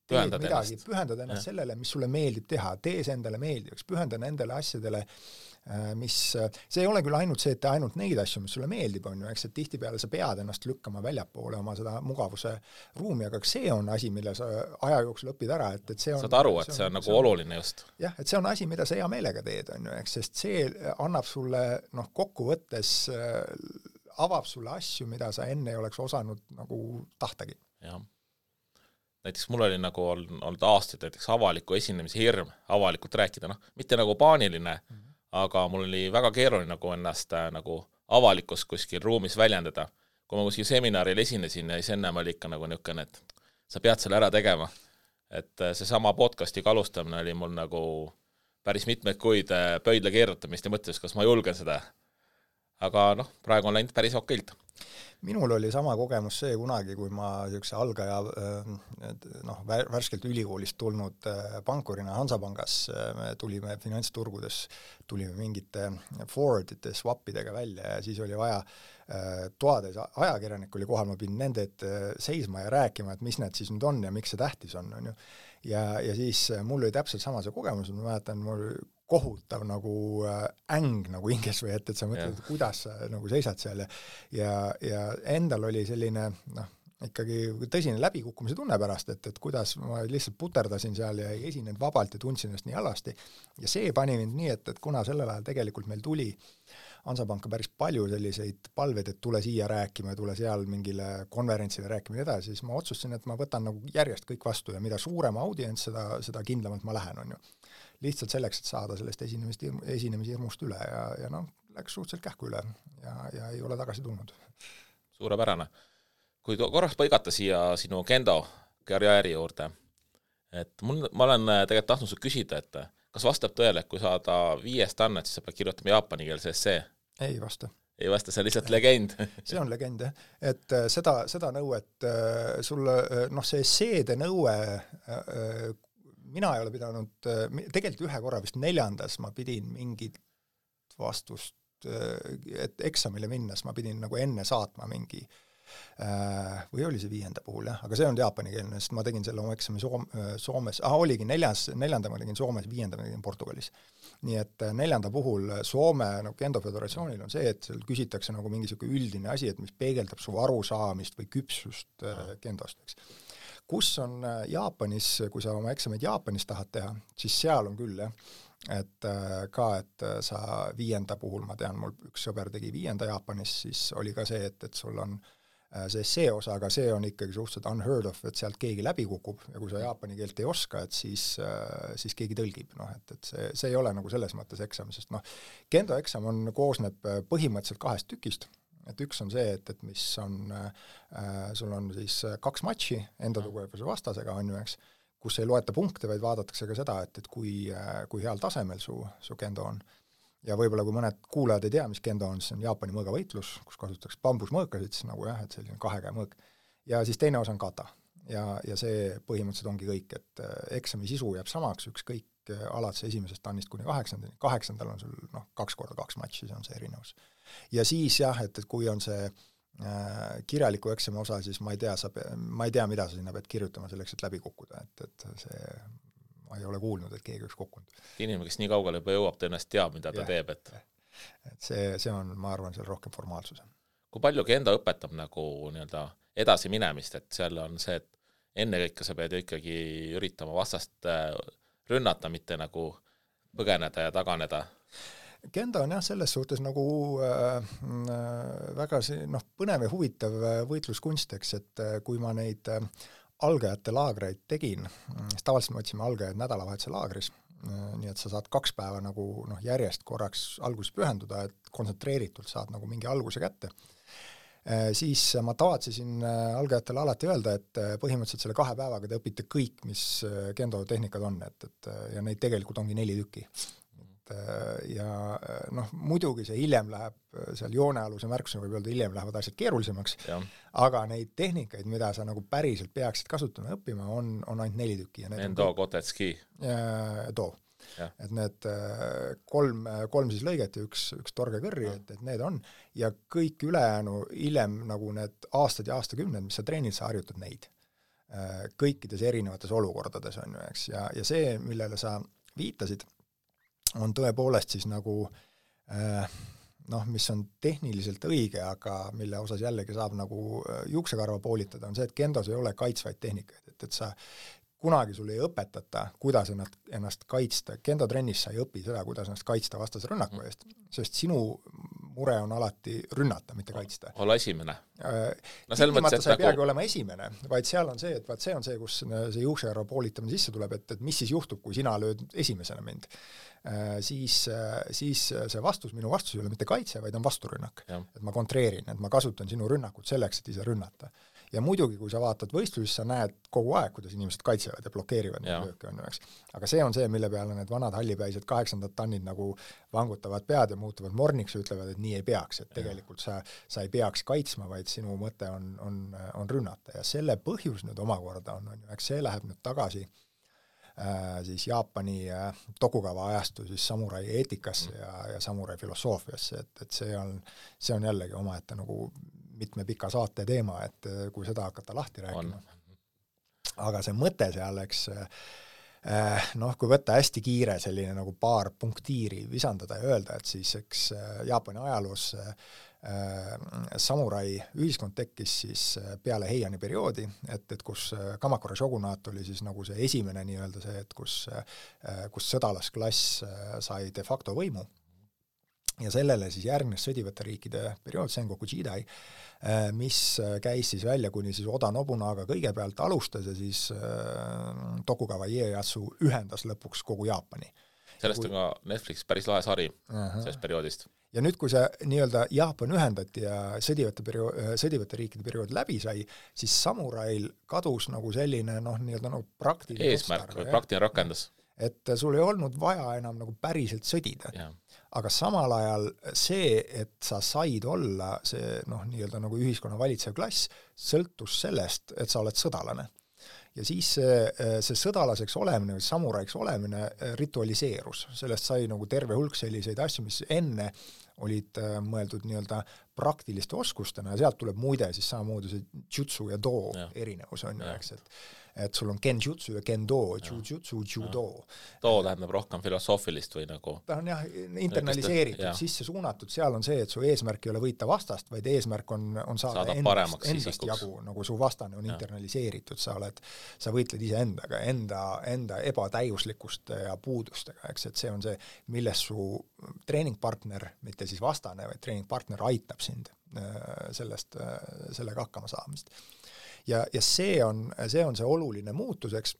pühendad ennast sellele, mis sulle meeldib teha, tee see endale meeldivaks, pühenda nendele asjadele, mis, see ei ole küll ainult see, et tee ainult neid asju, mis sulle meeldib, on ju, eks, et tihtipeale sa pead ennast lükkama väljapoole oma seda mugavuse ruumi, aga see on asi, mille sa aja jooksul õpid ära, et see on... Saad aru, et see on nagu oluline just. Jah, et see on asi, mida sa hea meelega teed, on ju, eks, sest see annab sulle, kokkuvõttes avab sulle asju, mida sa enne ei oleks osanud nagu tahtagi. Jah. Näiteks mul oli nagu olnud aastaid näiteks avaliku esinemise hirm, avalikult rääkida, mitte nagu paaniline, aga mul oli väga keeruline nagu ennast nagu avalikus kuskil ruumis väljendada. Kui ma kuskil seminaril esinesin ja siis ennem oli ikka nagu niisugune, et sa pead selle ära tegema. Et see sama podcastiga alustamine oli mul nagu päris mitmeid kuid pöidla keerutamist ja mõtles, kas ma julgen seda. Aga praegu on läinud päris okeilt. Minul oli sama kogemus see kunagi, kui ma niisuguse algaja värskelt ülikoolist tulnud pankurina Hansapangas, me tulime finantsturgudes, tulime mingite forwardite, swapidega välja ja siis oli vaja toades ajakirjanik oli kohal, ma pidin nende seisma ja rääkima, et mis need siis nüüd on ja miks see tähtis on ju. Ja siis mul oli täpselt sama see kogemus, ma mäletan, mul kohutav nagu äng nagu hinges või et sa mõtled, kuidas sa nagu seisad seal ja endal oli selline ikkagi tõsine läbikukkumise tunne pärast, et kuidas ma lihtsalt puterdasin seal ja ei esinenud vabalt ja tundsin ennast nii halvasti. Ja see pani mind nii, et kuna sellel ajal tegelikult meil tuli Hansapanka päris palju selliseid palveid, et tule siia rääkima ja tule seal mingile konverentsile rääkima ja edasi, siis ma otsustasin, et ma võtan nagu järjest kõik vastu ja mida suurema audients, seda kindlamalt ma lähen, on ju. Lihtsalt selleks, et saada sellest esinemishirmust üle ja läks suhteliselt kähku üle ja ei ole tagasi tulnud. Suurepärane. Kui korraks põigata siia sinu kendo karjääri juurde, et ma olen tegelikult tahtnud sul küsida, et kas vastab tõele, et kui saada 5 annet, siis sa pead kirjutama jaapanikeelse essee? Ei vasta. Ei vasta, see on lihtsalt legend. See on legend, jah. Et seda nõuet sulle, see esseede nõue mina ei ole pidanud, tegelikult ühe korra vist 4. ma pidin mingit vastust, et eksamile minnes ma pidin nagu enne saatma mingi, või oli see 5. puhul, jah, aga see on jaapanikeelne, sest ma tegin selle oma eksami Soomes, oligi 4. ma tegin Soomes, 5. ma tegin Portugalis. Nii et 4. puhul Soome Kendo Föderatsioonil on see, et seal küsitakse nagu mingi üldine asi, et mis peegeldab su arusaamist või küpsust kendost, eks. Kus on Jaapanis, kui sa oma eksameid Jaapanis tahad teha, siis seal on küll, jah, et sa 5. puhul, ma tean, mul üks sõber tegi 5. Jaapanis, siis oli ka see, et sul on see osa, aga see on ikkagi suhteliselt unheard of, et sealt keegi läbi kukub ja kui sa jaapani keelt ei oska, et siis keegi tõlgib, et see ei ole nagu selles mõttes eksam, sest kendo eksam koosneb põhimõtteliselt 2 tükist. Et üks on see, et mis on, sul on siis 2 matši enda tugevuse vastasega, on ju, eks, kus ei loeta punkte, vaid vaadatakse ka seda, et kui heal tasemel su kendo on. Ja võib-olla kui mõned kuulajad ei tea, mis kendo on, siis on Jaapani mõõgavõitlus, kus kasutatakse bambusmõõkasid, siis nagu jah, et selline 2 käe mõõk. Ja siis teine osa on kata. Ja see põhimõtteliselt ongi kõik, et eksami sisu jääb samaks, ükskõik alates 1. tannist kuni 8. 8. on sul 2x2 matši, see on see erinevus. Ja siis jah, et kui on see kirjaliku eksami osa, siis ma ei tea, mida sa sinna pead kirjutama selleks, et läbi kukkuda, et see, ma ei ole kuulnud, et keegi üks kukkunud. Inimene, kes nii kaugele juba jõuab, tõenäoliselt teab, mida ta teeb, et see on, ma arvan, seal rohkem formaalsus. Kui palju kendo õpetab nagu nii-öelda edasi minemist, et seal on see, et enne kõike sa pead ju ikkagi üritama vastast rünnata, mitte nagu põgeneda ja taganeda? Kendo on jah selles suhtes nagu väga põnev ja huvitav võitluskunsteks, et kui ma neid algajate laagreid tegin, siis tavaliselt me otsime algajaid nädalavahetuse laagris, nii et sa saad 2 päeva nagu järjest korraks alguses pühenduda, et kontsentreeritult saad nagu mingi alguse kätte. Siis ma tavatsesin algajatele alati öelda, et põhimõtteliselt selle 2 päevaga te õpite kõik, mis kendo tehnikad on, ja neid tegelikult ongi 4 tükki. Ja muidugi see hiljem läheb, seal joonealuse märkusena võib öelda, hiljem lähevad asjad keerulisemaks, aga neid tehnikaid, mida sa nagu päriselt peaksid kasutama ja õppima, on ainult 4 tükki. Endo, Kotetski. Too. Et need 3 siis lõiget ja üks torge kõrri, et need on, ja kõik ülejäänu hiljem nagu need aastad ja aastakümned, mis sa treenid, sa harjutad neid. kõikides erinevates olukordades, on ju, eks, ja see, millele sa viitasid, on tõepoolest siis nagu mis on tehniliselt õige, aga mille osas jällegi saab nagu juuksekarva poolitada, on see, et kendos ei ole kaitsvaid tehnikaid, et sa kunagi sul ei õpetata, kuidas ennast kaitsta. Kendo-trennis sa ei õpi seda, kuidas ennast kaitsta vastase rünnaku eest, sest sinu mure on alati rünnata, mitte kaitsta. Olla esimene. Tingimata sa ei peagi olema esimene, vaid seal on see, et see on see, kus see juuksekarva poolitamine sisse tuleb, et mis siis juhtub, kui sina lööd esimesena mind. Siis see minu vastus ei ole mitte kaitse, vaid on vasturünnak. Et ma kontreerin, et ma kasutan sinu rünnakut selleks, et ise rünnata. Ja muidugi, kui sa vaatad võistlusi, sa näed kogu aeg, kuidas inimesed kaitsevad ja blokeerivad neid lööke, on üheks. Aga see on see, mille peale need vanad hallipäised 8. tannid nagu vangutavad pead ja muutuvad morniks ja ütlevad, et nii ei peaks, et tegelikult sa ei peaks kaitsma, vaid sinu mõte on rünnata. Ja selle põhjus nüüd omakorda on ju, eks see läheb nüüd tagasi siis Jaapani Tokugava ajastu siis samurai eetikasse ja samurai filosoofiasse, et see on jällegi omaette nagu mitme pika saate teema, et kui seda hakata lahti rääkima. Aga see mõte seal, eks, kui võtta hästi kiire selline nagu paar punktiiri visandada ja öelda, et siis eks Jaapani ajaloos samurai ühiskond tekkis siis peale Heiani perioodi, et kus Kamakura shogunaat oli siis nagu see esimene nii-öelda see, et kus sõdalasklass sai de facto võimu. Ja sellele siis järgnes sõdivate riikide periood, Sengoku Jidai, mis käis siis välja kuni siis Oda Nobunaga kõigepealt alustas ja siis Tokugawa Ieyasu ühendas lõpuks kogu Jaapani. Sellest on ka Netflix päris lahe sari sellest perioodist. Ja nüüd, kui see nii-öelda Jaapan ühendati ja sõdivate riikide periood läbi sai, siis samurail kadus nagu selline nii-öelda nagu praktiline eesmärk või praktiline rakendus. Et sul ei olnud vaja enam nagu päriselt sõdida. Aga samal ajal see, et sa said olla see nii-öelda nagu ühiskonna valitsev klass, sõltus sellest, et sa oled sõdalane. Ja siis see sõdalaseks olemine või samuraiks olemine ritualiseerus. Sellest sai nagu terve hulk selliseid asju, mis enne olid mõeldud nii-öelda praktiliste oskustena ja sealt tuleb muide siis samamoodi see jutsu ja do erinevus on ju, eks, et sul on kenjutsu ja kendo, jujutsu, judo. Do tähendab rohkem filosoofilist või nagu? Ta on internaliseeritud, sisse suunatud, seal on see, et su eesmärk ei ole võita vastast, vaid eesmärk on saada endast jagu, nagu su vastane on internaliseeritud, sa võitled ise endaga, enda ebatäiuslikkuste ja puudustega, eks, et see on see, milles su treeningpartner, mitte siis vastane, vaid treeningpartner aitab sind sellega hakkama saamist. Ja see on see oluline muutuseks,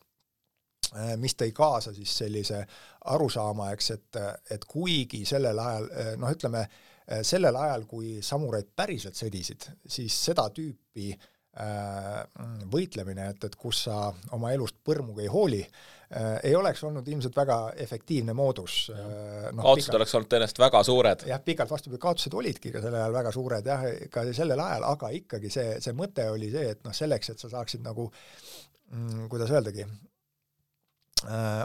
mis tõi kaasa siis sellise arusaama, eks, et kuigi sellel ajal, sellel ajal, kui samuraid päriselt sõdisid, siis seda tüüpi võitlemine, et kus sa oma elust põrmuga ei hooli, ei oleks olnud ilmselt väga efektiivne moodus. Kaotused oleks olnud tõenäoliselt väga suured. Jah, pikalt vastupidi, kaotused olidki ka sellel ajal väga suured, ka sellel ajal, aga ikkagi see mõte oli see, et selleks, et sa saaksid nagu, kuidas öeldagi,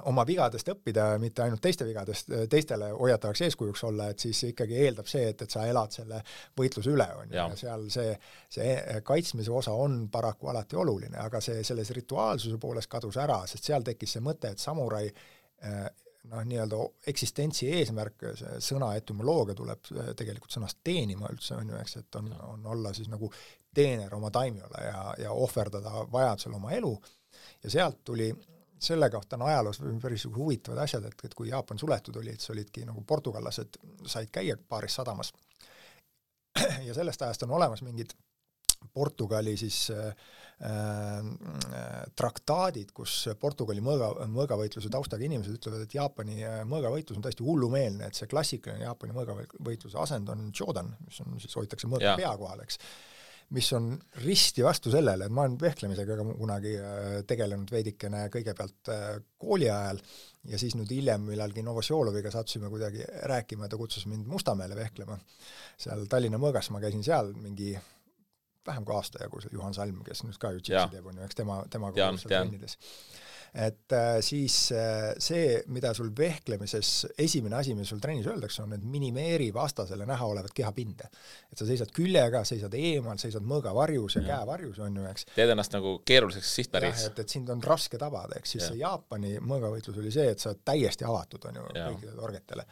oma vigadest õppida, mitte ainult teiste vigadest, teistele hoiatavaks eeskujuks olla, et siis ikkagi eeldab see, et sa elad selle võitluse üle. Ja seal see kaitsmise osa on paraku alati oluline, aga selles rituaalsuse poolest kadus ära, sest seal tekkis see mõte, et samurai nii-öelda eksistentsi eesmärk, see sõna etümoloogia tuleb tegelikult sõnast teenima üldse, on ju, eks, et on olla siis nagu teener oma taimiole ja ohverdada vajadusel oma elu ja sealt tuli selle kohta on ajaloos päris huvitavad asjad, et kui Jaapan suletud oli, et see olidki nagu portugallased said käia paaris sadamas. Ja sellest ajast on olemas mingid Portugali siis traktaadid, kus Portugali mõõgavõitluse taustaga inimesed ütlevad, et Jaapani mõõgavõitlus on täiesti hullumeelne, et see klassikaline Jaapani mõõgavõitluse asend on Jodan, mis on siis hoitakse mõõga pea kohal, eks, mis on risti vastu sellele, et ma olen vehklemisega kunagi tegelenud veidikene kõigepealt kooli ajal ja siis nüüd hiljem millalgi Novosjoloviga sattusime kuidagi rääkima, ta kutsus mind Mustamäele vehklema. Seal Tallinna mõõgas ma käisin seal mingi vähem kui aasta jagu, Juhan Salm, kes nüüd ka ju teeb, on ju, eks tema trennides. et siis see, mida sul vehklemises esimene asi, mis sul trennis öeldakse, on, et minimeeri vastasele näha olevat kehapinde. Et sa seisad küljega, seisad eemal, seisad mõõgavarjus ja käevarjus, on ju, eks. Teed ennast nagu keeruliseks sihtpäris. Et sind on raske tabada, eks siis see Jaapani mõõgavõitlus oli see, et sa täiesti avatud, on ju, kõikide torgetele.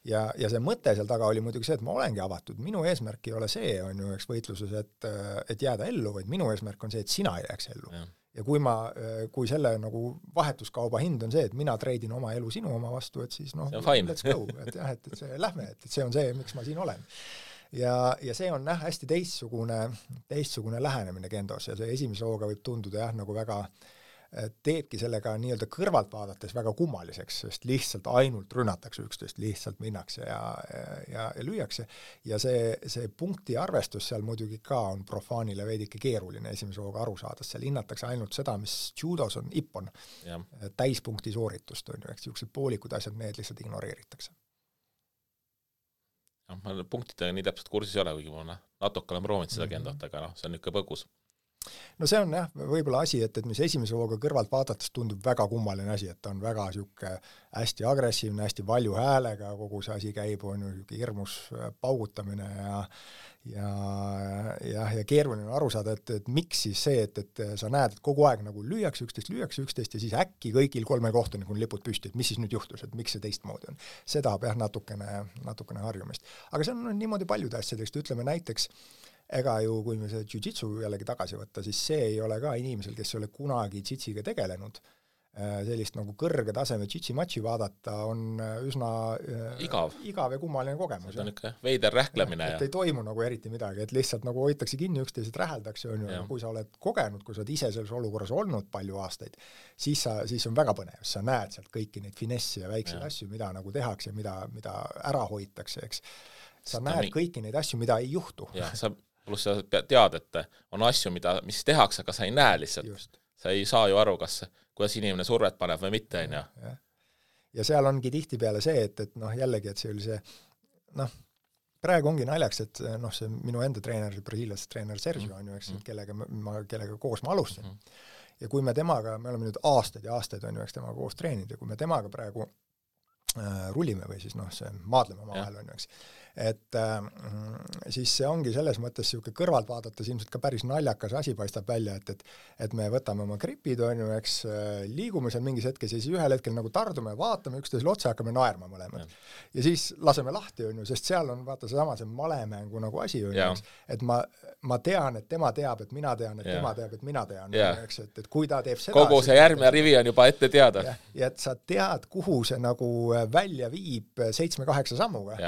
Ja see mõte seal taga oli muidugi see, et ma olengi avatud. Minu eesmärk ei ole see, on ju, eks võitluses, et jääda ellu, vaid minu eesmärk on see, et sina ei jääks ellu. Ja kui selle nagu vahetuskauba hind on see, et mina treidin oma elu sinu oma vastu, et siis noh, let's go, et jah, et see lähme, et see on see, miks ma siin olen. Ja see on hästi teistsugune lähenemine kendos ja see esimese hooga võib tunduda jah, nagu väga teebki sellega nii-öelda kõrvalt vaadates väga kummaliseks, sest lihtsalt ainult rünnatakse üksteist, lihtsalt minnakse ja lüüakse. Ja see punkti arvestus seal muidugi ka on profaanile veidike keeruline esimese hooga aru saada, seal hinnatakse ainult seda, mis judos on ippon, täispunkti sooritust, on ju, eks niisugused poolikud asjad, need lihtsalt ignoreeritakse. Ma punktidega nii täpselt kursis ei ole, kuigi ma natuke olen proovinud seda kendot, aga see on ikka põgus. No see on jah, võib-olla asi, et mis esimese hooga kõrvalt vaadates tundub väga kummaline asi, et ta on väga siuke hästi agressiivne, hästi valju häälega, kogu see asi käib, on ju hirmus paugutamine ja keeruline aru saada, et miks siis see, et sa näed, et kogu aeg nagu lüüakse üksteist ja siis äkki kõigil 3 kohtunikul lipud püsti, et mis siis nüüd juhtus, et miks see teistmoodi on. See tahab jah natukene harjumist. Aga see on niimoodi paljude asjadest, ütleme näiteks ega ju, kui me see jiu-jitsu jällegi tagasi võtta, siis see ei ole ka inimesel, kes ei ole kunagi jiu-jitsiga tegelenud. Sellist nagu kõrge taseme jiu-jitsi-matši vaadata on üsna igav ja kummaline kogemus. See on ikka veider rähklemine. Et ei toimu nagu eriti midagi, et lihtsalt nagu hoitakse kinni üksteised räheldakse, on ju, kui sa oled kogenud, kui sa oled ise selles olukorras olnud palju aastaid, siis on väga põnev, sa näed sealt kõiki neid finessi ja väikseid asju, mida nagu tehakse, mida ära hoitakse, eks. Sa näed kõiki neid asju, mida ei juhtu. Pluss sa tead, et on asju, mis tehakse, aga sa ei näe lihtsalt. Just. Sa ei saa ju aru, kuidas inimene survet paneb või mitte. Ja seal ongi tihti peale see, et jällegi, et see oli see, praegu ongi naljaks, et see minu enda treener, brasiiliast treener Sergio on ju, eks, kellega koos ma alustasin. Ja kui me temaga, me oleme nüüd aastaid ja aastaid on ju, eks temaga koos treeninud ja kui me temaga praegu rullime või siis see maadleme omavahel on ju, eks. Et siis see ongi selles mõttes siuke kõrvalt vaadates ilmselt ka päris naljakas asi paistab välja, et me võtame oma gripid, on ju, eks, liigume seal mingis hetkes ja siis ühel hetkel nagu tardume, vaatame üksteisele otsa, hakkame naerma mõlemad. Ja siis laseme lahti, on ju, sest seal on vaata see malemängu nagu asi, on ju, et ma tean, et tema teab, et mina tean, et tema teab, et mina tean, eks, et kui ta teeb seda... Kogu see järgmine rivi on juba ette teada. Ja et sa tead, kuhu see nagu välja viib 7-8 sammuga.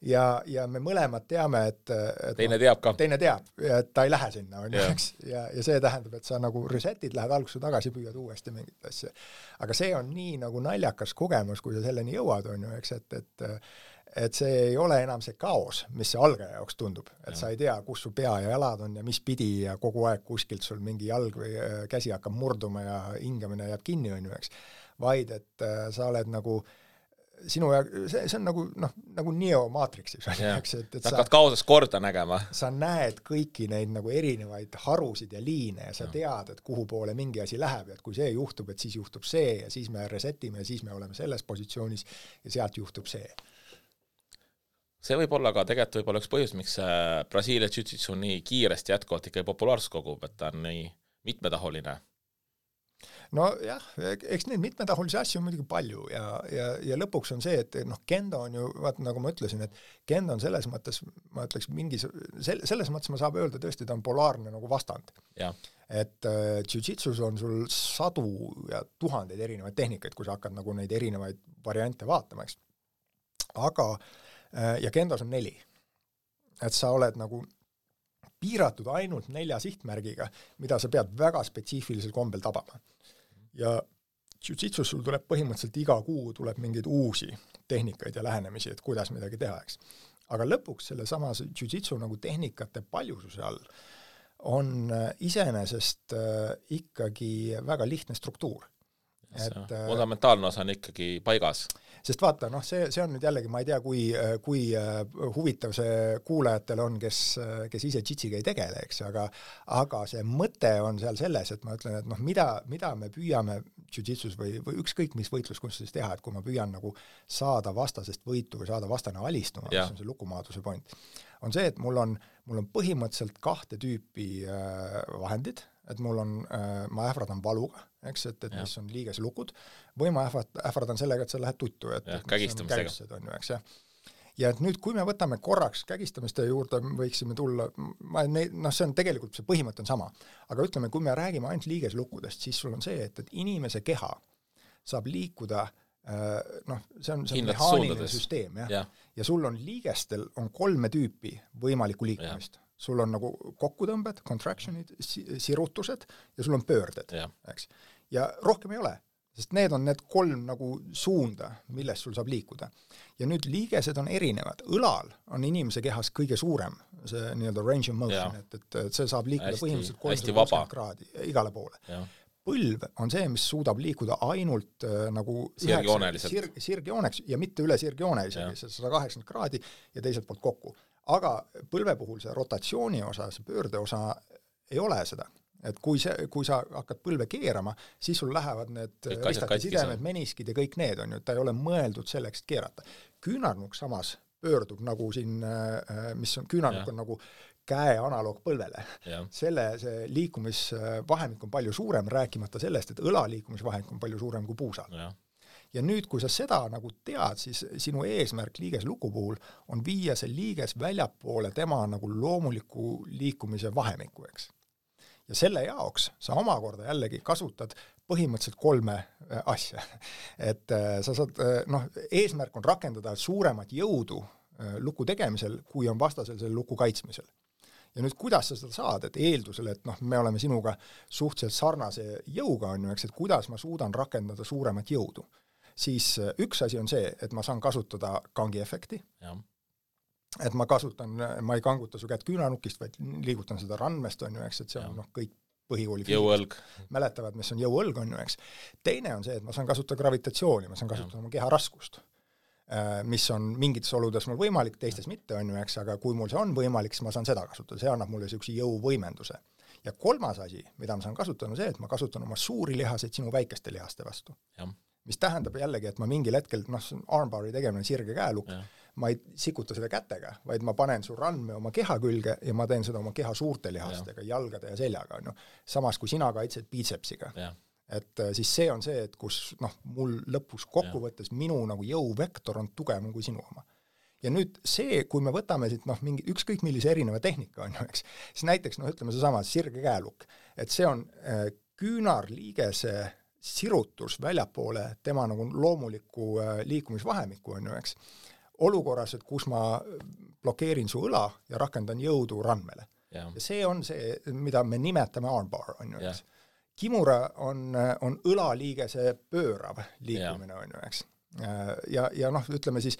Ja me mõlemad teame, et teine teab ka. Teine teab, et ta ei lähe sinna, on ju, eks. Ja see tähendab, et sa nagu resetid, lähed alguse tagasi, püüad uuesti mingit asja. Aga see on nii nagu naljakas kogemus, kui sa selleni jõuad, on ju, eks, et see ei ole enam see kaos, mis see algaja jaoks tundub. Et sa ei tea, kus su pea ja jalad on ja mis pidi ja kogu aeg kuskilt sul mingi jalg või käsi hakkab murduma ja hingamine jääb kinni, on ju, eks. Vaid, et sa oled nagu sinu ja see on nagu Neo Matrixis, eks, et sa hakkad kaoses korda nägema. Sa näed kõiki neid nagu erinevaid harusid ja liine ja sa tead, et kuhu poole mingi asi läheb ja et kui see juhtub, et siis juhtub see ja siis me resetime ja siis me oleme selles positsioonis ja sealt juhtub see. See võib olla ka tegelikult võib olla üks põhjus, miks Brasiilia jiu-jitsu nii kiiresti jätkuvalt ikka populaarsust kogub, et ta on nii mitmetahuline. No jah, eks neid mitmetahulisi asju on muidugi palju ja lõpuks on see, et kendo on ju, vaata nagu ma ütlesin, et kendo on selles mõttes, ma ütleks selles mõttes ma saab öelda tõesti, ta on polaarne nagu vastand. Ja. Et jiu-jitsus on sul sadu ja tuhandeid erinevaid tehnikaid, kui sa hakkad nagu neid erinevaid variante vaatama, eks. Aga, ja kendos on 4. Et sa oled nagu piiratud ainult 4 sihtmärgiga, mida sa pead väga spetsiifilisel kombel tabama. Ja jiu-jitsus sul tuleb põhimõtteliselt iga kuu tuleb mingeid uusi tehnikaid ja lähenemisi, et kuidas midagi teha, eks. Aga lõpuks selle sama jiu-jitsu nagu tehnikate paljususe all on iseenesest ikkagi väga lihtne struktuur. fundamentaalne osa on ikkagi paigas. Sest vaata, noh, see on nüüd jällegi, ma ei tea, kui huvitav see kuulajatele on, kes ise jitsiga ei tegele, eks, aga see mõte on seal selles, et ma ütlen, et noh, mida me püüame jiu-jitsus või ükskõik mis võitluskunstis teha, et kui ma püüan nagu saada vastasest võitu või saada vastane alistuma, mis on see lukumaaduse point, on see, et mul on põhimõtteliselt 2 tüüpi vahendid, et ma ähvardan valuga, eks, et mis on liigese lukud, või ma ähvardan sellega, et sa lähed tuttu, et kägistamistega. On ju, eks, ja et nüüd, kui me võtame korraks kägistamiste juurde, võiksime tulla, see on tegelikult, see põhimõte on sama, aga ütleme, kui me räägime ainult liigeslukkudest, siis sul on see, et inimese keha saab liikuda, see on mehaaniline süsteem, ja sul on liigestel on 3 tüüpi võimalikku liikumist. Sul on nagu kokkutõmbed, contractionid, sirutused ja sul on pöörded, eks. Ja rohkem ei ole, sest need on need 3 nagu suunda, millest sul saab liikuda. Ja nüüd liigesed on erinevad. Õlal on inimese kehas kõige suurem, see nii-öelda range of motion, et see saab liikuda põhimõtteliselt 360 kraadi igale poole. Põlv on see, mis suudab liikuda ainult nagu sirgjooneks ja mitte üle sirgjoone isegi, 180 kraadi ja teiselt poolt kokku. Aga põlve puhul see rotatsiooni osa, see pöörde osa ei ole seda. Et kui sa hakkad põlve keerama, siis sul lähevad need ristati sidemed, meniskid ja kõik need on ju, ta ei ole mõeldud selleks, et keerata. Küünarnukk samas pöördub nagu siin, mis on, küünarnukk on nagu käe analoog põlvele. See liikumisvahemik on palju suurem, rääkimata sellest, et õla liikumisvahemik on palju suurem kui puusal. Ja nüüd, kui sa seda nagu tead, siis sinu eesmärk liigesluku puhul on viia see liiges väljapoole tema nagu loomuliku liikumise vahemiku, eks. Ja selle jaoks sa omakorda jällegi kasutad põhimõtteliselt 3 asja. Et sa saad, eesmärk on rakendada suuremat jõudu luku tegemisel, kui on vastasel selle luku kaitsmisel. Ja nüüd, kuidas sa seda saad, et eeldusel, et me oleme sinuga suhteliselt sarnase jõuga, on ju, eks, et kuidas ma suudan rakendada suuremat jõudu. Siis üks asi on see, et ma saan kasutada kangi efekti, et ma ei kanguta su kätt küünanukist, vaid liigutan seda randmest, on ju, eks, et see on kõik põhikooli mäletavad, mis on jõuõlg, on ju, eks. Teine on see, et ma saan kasutada gravitatsiooni, ma saan kasutada oma keha raskust, mis on mingites oludes mul võimalik, teistes mitte, on ju, eks, aga kui mul see on võimalik, siis ma saan seda kasutada, see annab mulle niisuguse jõuvõimenduse. Ja 3. asi, mida ma saan kasutada, on see, et ma kasutan oma suuri lihaseid sinu väikeste lihaste vastu. Mis tähendab jällegi, et ma mingil hetkel, armbari tegemine sirge käelukk, ma ei sikuta seda kätega, vaid ma panen su randme oma keha külge ja ma teen seda oma keha suurte lihastega, jalgade ja seljaga, on ju. Samas kui sina kaitsed biitsepsiga. Et siis see on see, et kus mul lõpus kokkuvõttes minu nagu jõuvektor on tugevam kui sinu oma. Ja nüüd see, kui me võtame siit mingi ükskõik millise erineva tehnika, on ju, eks, siis näiteks, ütleme seesama sirge käelukk, et see on küünarliigese sirutus väljapoole tema nagu loomuliku liikumisvahemiku, on ju, eks, olukorras, et kus ma blokeerin su õla ja rakendan jõudu randmele. Ja see on see, mida me nimetame armbar, on ju, eks. Kimura on õlaliigese pöörav liikumine, on ju, eks. Ja ütleme siis,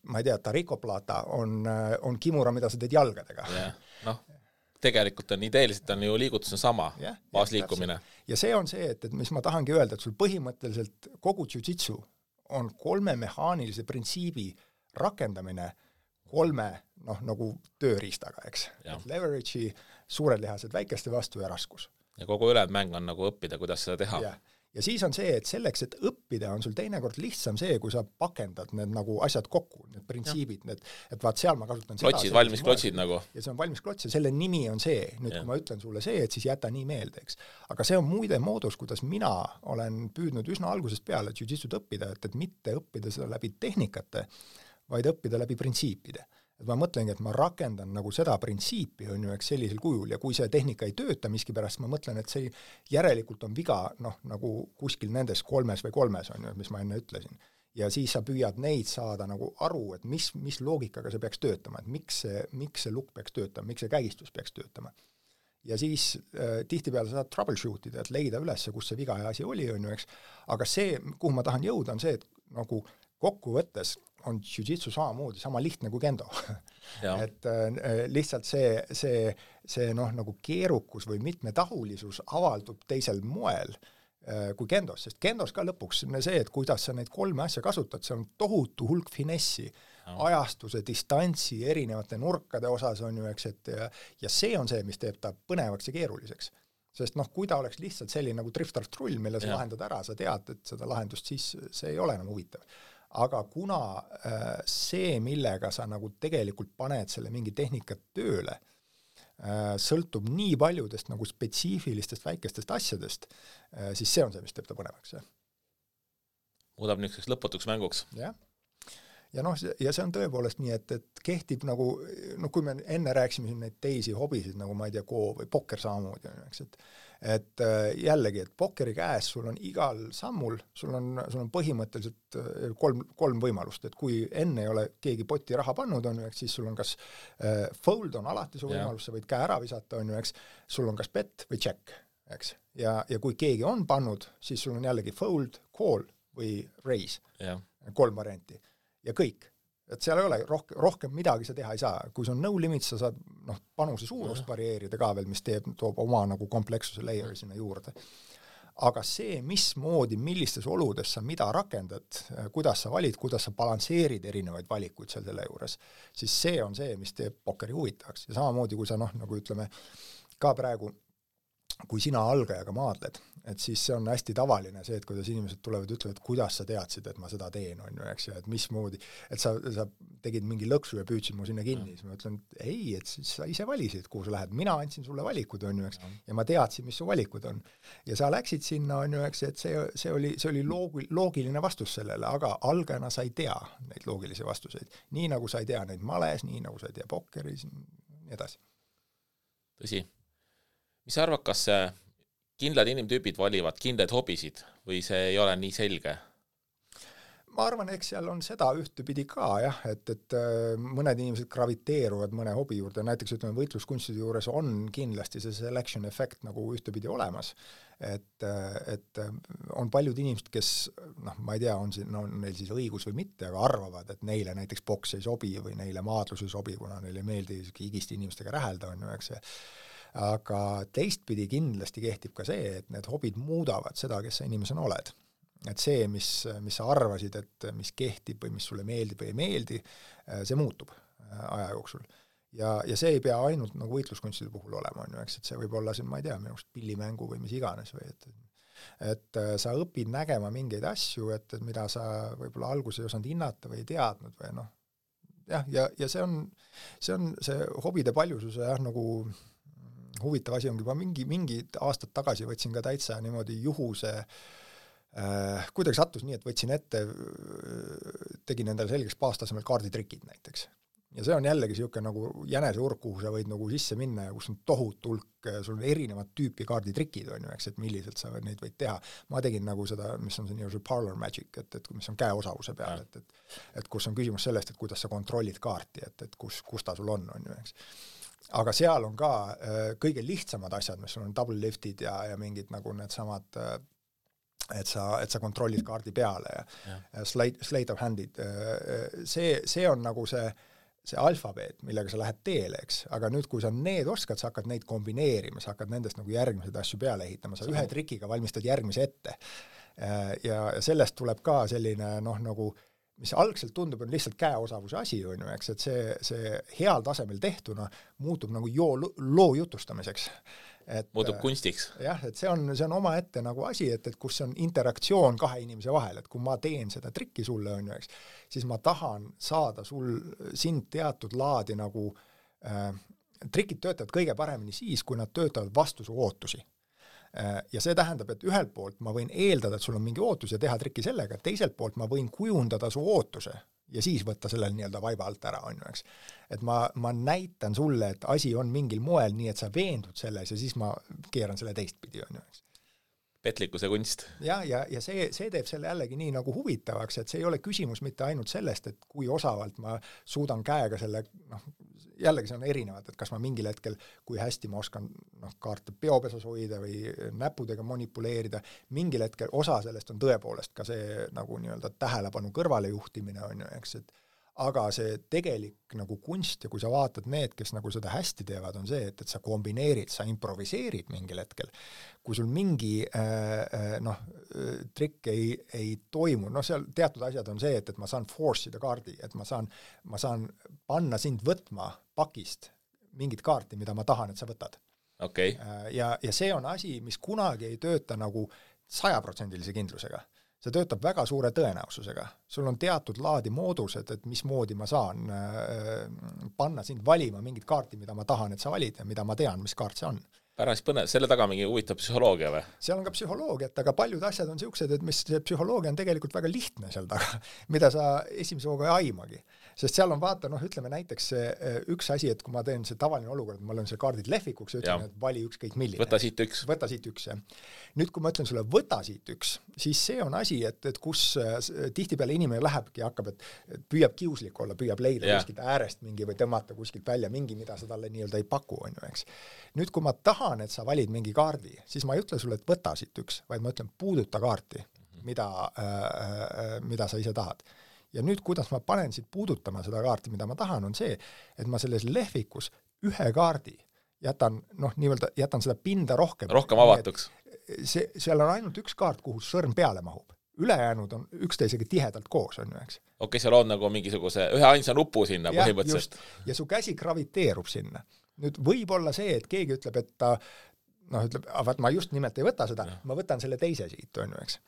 ma ei tea, tarikoplata on kimura, mida sa teed jalgadega. Tegelikult on ideeliselt on ju liigutus on sama, baasliikumine. Ja see on see, et mis ma tahangi öelda, et sul põhimõtteliselt kogu jiu-jitsu on 3 mehaanilise printsiibi rakendamine 3 nagu tööriistaga, eks. Leverage'i, suured lihased väikeste vastu ja raskus. Ja kogu ülejäänud mäng on nagu õppida, kuidas seda teha. Ja siis on see, et selleks, et õppida, on sul teinekord lihtsam see, kui sa pakendad need nagu asjad kokku, need printsiibid, et vaat seal ma kasutan klotsid, valmis klotsid nagu. Ja see on valmis klots ja selle nimi on see, nüüd kui ma ütlen sulle see, et siis jäta nii meelde, eks. Aga see on muide moodus, kuidas mina olen püüdnud üsna algusest peale jiu-jitsut õppida, et mitte õppida seda läbi tehnikate, vaid õppida läbi printsiipide. Et ma mõtlengi, et ma rakendan nagu seda printsiipi, on ju, eks sellisel kujul, ja kui see tehnika ei tööta miskipärast, ma mõtlen, et see järelikult on viga, nagu kuskil nendes 3 või 3, on ju, mis ma enne ütlesin. Ja siis sa püüad neid saada nagu aru, et mis loogikaga see peaks töötama, et miks see lukk peaks töötama, miks see kägistus peaks töötama. Ja siis tihtipeale saad troubleshootida, et leida üles, kus see viga ja asi oli, on ju, eks. Aga see, kuhu ma tahan jõuda, on see, et nagu kokkuvõttes on jiu-jitsu samamoodi, sama lihtne kui kendo. Et lihtsalt see nagu keerukus või mitmetahulisus avaldub teisel moel, kui kendos, sest kendos ka lõpuks see, et kuidas sa neid 3 asja kasutad, see on tohutu hulk finessi, ajastuse, distantsi, erinevate nurkade osas on ju, eks, et ja see on see, mis teeb ta põnevaks ja keeruliseks. Sest kui ta oleks lihtsalt selline nagu drift-trull, mille sa lahendad ära, sa tead, et seda lahendust, siis see ei ole enam huvitav. Aga kuna see, millega sa nagu tegelikult paned selle mingi tehnikat tööle, sõltub nii paljudest nagu spetsiifilistest väikestest asjadest, siis see on see, mis teeb ta põnevaks. Muudab niisuguseks lõputuks mänguks. Jah. Ja ja see on tõepoolest nii, et kehtib nagu, kui me enne rääksime siin neid teisi hobisid, nagu ma ei tea, Go või pokker samamoodi, eks, et jällegi, et pokkeri käes sul on igal sammul, sul on põhimõtteliselt 3 võimalust, et kui enne ei ole keegi poti raha pannud, on ju, eks, siis sul on kas fold on alati su võimalus, sa võid käe ära visata, on ju, eks, sul on kas bet või check, eks, ja kui keegi on pannud, siis sul on jällegi fold, call või raise, 3 varianti. Ja kõik. Et seal ei ole rohkem midagi sa teha ei saa. Kui see on no limit, sa saad panuse suurust varieerida ka veel, mis toob oma nagu komplekssuse layeri sinna juurde. Aga see, mismoodi, millistes oludes sa mida rakendad, kuidas sa valid, kuidas sa balansseerid erinevaid valikuid seal selle juures, siis see on see, mis teeb pokkeri huvitavaks. Ja samamoodi, kui sa nagu ütleme, ka praegu kui sina algajaga maadled, et siis see on hästi tavaline see, et kuidas inimesed tulevad ja ütlevad, kuidas sa teadsid, et ma seda teen, on ju, eks, ja et mismoodi, et sa tegid mingi lõksu ja püüdsid mu sinna kinni, siis ma ütlen, et ei, et siis sa ise valisid, kuhu sa lähed, mina andsin sulle valikud, on ju, eks, ja ma teadsin, mis su valikud on. Ja sa läksid sinna, on ju, eks, et see oli loogiline vastus sellele, aga algajana sa ei tea neid loogilisi vastuseid. Nii nagu sa ei tea neid males, nii nagu sa ei tea pokkeris, nii edasi. Tõsi. Mis sa arvad, kas kindlad inimtüübid valivad kindlaid hobisid või see ei ole nii selge? Ma arvan, eks seal on seda ühtepidi ka, jah, et mõned inimesed graviteeruvad mõne hobi juurde, näiteks ütleme võitluskunstide juures on kindlasti see selection effect nagu ühtepidi olemas, et on paljud inimesed, kes, ma ei tea, on neil siis õigus või mitte, aga arvavad, et neile näiteks boks ei sobi või neile maadlus ei sobi, kuna neile ei meeldi higiste inimestega räähelda, on ju, eks see. Aga teistpidi kindlasti kehtib ka see, et need hobid muudavad seda, kes sa inimesena oled. Et see, mis sa arvasid, et mis kehtib või mis sulle meeldib või ei meeldi, see muutub aja jooksul. Ja see ei pea ainult nagu võitluskunstide puhul olema, on ju, eks, et see võib olla siin, ma ei tea, minu arust pillimängu või mis iganes või et sa õpid nägema mingeid asju, et mida sa võib-olla alguses ei osanud hinnata või ei teadnud või jah, ja see on see hobide paljususe jah, nagu huvitav asi ongi, ma mingi aastad tagasi võtsin ka täitsa niimoodi juhuse, kuidagi sattus nii, et võtsin ette, tegin endale selgeks baastasemel kaarditrikid näiteks. Ja see on jällegi siuke nagu jäneseurk, kuhu sa võid nagu sisse minna ja kus on tohutu hulk, sul on erinevad tüüpi kaarditrikid, on ju, eks, et milliselt sa neid võid teha. Ma tegin nagu seda, mis on see nii parlor magic, et mis on käeosavuse peal, et kus on küsimus sellest, et kuidas sa kontrollid kaarti, et kus ta sul on ju, eks. Aga seal on ka kõige lihtsamad asjad, mis sul on double liftid ja mingid nagu need samad, et sa kontrollid kaardi peale ja slate of handid. See on nagu see alfabeet, millega sa lähed teele, eks. Aga nüüd, kui sa need oskad, sa hakkad neid kombineerima, sa hakkad nendest nagu järgmised asju peale ehitama, sa ühe trikiga valmistad järgmise ette. Ja sellest tuleb ka selline nagu mis algselt tundub, on lihtsalt käeosavuse asi, on ju, eks, et see heal tasemel tehtuna muutub nagu loo jutustamiseks. Muutub kunstiks. Jah, et see on oma ette nagu asi, et kus on interaktsioon 2 inimese vahel, et kui ma teen seda trikki sulle, on ju, eks, siis ma tahan saada sind teatud laadi nagu trikid töötavad kõige paremini siis, kui nad töötavad vastu su ootusi. Ja see tähendab, et ühelt poolt ma võin eeldada, et sul on mingi ootus ja teha trikki sellega, teiselt poolt ma võin kujundada su ootuse ja siis võtta sellel nii-öelda vaiba alt ära, on ju, eks. Et ma näitan sulle, et asi on mingil moel nii, et sa veendud selles ja siis ma keeran selle teistpidi, on ju, eks. Petlikkuse kunst. Ja see teeb selle jällegi nii nagu huvitavaks, et see ei ole küsimus mitte ainult sellest, et kui osavalt ma suudan käega selle, jällegi see on erinevad, et kas ma mingil hetkel, kui hästi ma oskan kaarte peopesas hoida või näpudega manipuleerida, mingil hetkel osa sellest on tõepoolest ka see nagu nii-öelda tähelepanu kõrvale juhtimine, on ju, eks, et aga see tegelik nagu kunst ja kui sa vaatad need, kes nagu seda hästi teevad, on see, et sa kombineerid, sa improviseerid mingil hetkel. Kui sul mingi trikk ei toimu, seal teatud asjad on see, et ma saan force'ida kaardi, et ma saan panna sind võtma pakist mingit kaarti, mida ma tahan, et sa võtad. Okay. Ja see on asi, mis kunagi ei tööta nagu 100% kindlusega. See töötab väga suure tõenäosusega. Sul on teatud laadi moodused, et mismoodi ma saan panna sind valima mingit kaarti, mida ma tahan, et sa valid ja mida ma tean, mis kaart see on. Päris põnev, selle taga mingi huvitav psühholoogia või? Seal on ka psühholoogiat, aga paljud asjad on siuksed, et mis see psühholoogia on tegelikult väga lihtne seal taga, mida sa esimese hooga ei aimagi. Sest seal on vaata, ütleme näiteks üks asi, et kui ma teen see tavaline olukord, ma olen see kaardid lehvikuks ja ütlen, et vali ükskõik milline. Võta siit üks. Võta siit üks, jah. Nüüd, kui ma ütlen sulle, võta siit üks, siis see on asi, et kus tihtipeale inimene lähebki ja hakkab, et püüab kiuslik olla, püüab leida kuskilt äärest mingi või tõmmata kuskilt välja mingi, mida sa talle nii-öelda ei paku, on ju, eks. Nüüd, kui ma tahan, et sa valid mingi kaardi, siis ma ei ütle sulle, et võta siit üks, vaid ma ütlen, puuduta kaarti, mida sa ise tahad. Ja nüüd, kuidas ma panen siit puudutama seda kaarti, mida ma tahan, on see, et ma selles lehvikus ühe kaardi jätan seda pinda rohkem avatuks. Seal on ainult üks kaart, kuhu sõrm peale mahub. Ülejäänud on üksteisega tihedalt koos, on ju, eks. Okei, seal on nagu mingisuguse ühe ainsa nupu sinna põhimõtteliselt. Ja su käsi graviteerub sinna. Nüüd võib olla see, et keegi ütleb, et ta ma just nimelt ei võta seda, ma võtan selle teise siit, on ju, eks.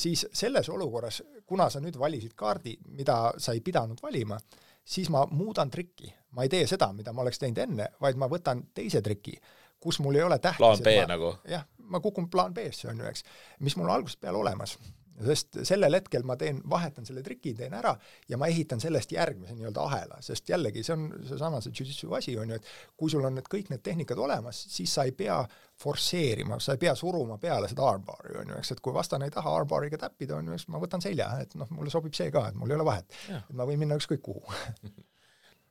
Siis selles olukorras, kuna sa nüüd valisid kaardi, mida sa ei pidanud valima, siis ma muudan trikki. Ma ei tee seda, mida ma oleks teinud enne, vaid ma võtan teise triki, kus mul ei ole tähtis. Plaan B nagu. Jah, ma kukun plaan B-sse, on ju, eks, mis mul algusest peale olemas. Sest sellel hetkel ma vahetan selle triki, teen ära ja ma ehitan sellest järgmise nii-öelda ahela, sest jällegi see on seesama see jiu-jitsu asi, on ju, et kui sul on kõik need tehnikad olemas, siis sa ei pea forsseerima, sa ei pea suruma peale seda armbari, on ju, eks, et kui vastane ei taha armbariga täppida, on ju, eks ma võtan selja, et mulle sobib see ka, et mul ei ole vahet, et ma võin minna ükskõik kuhu.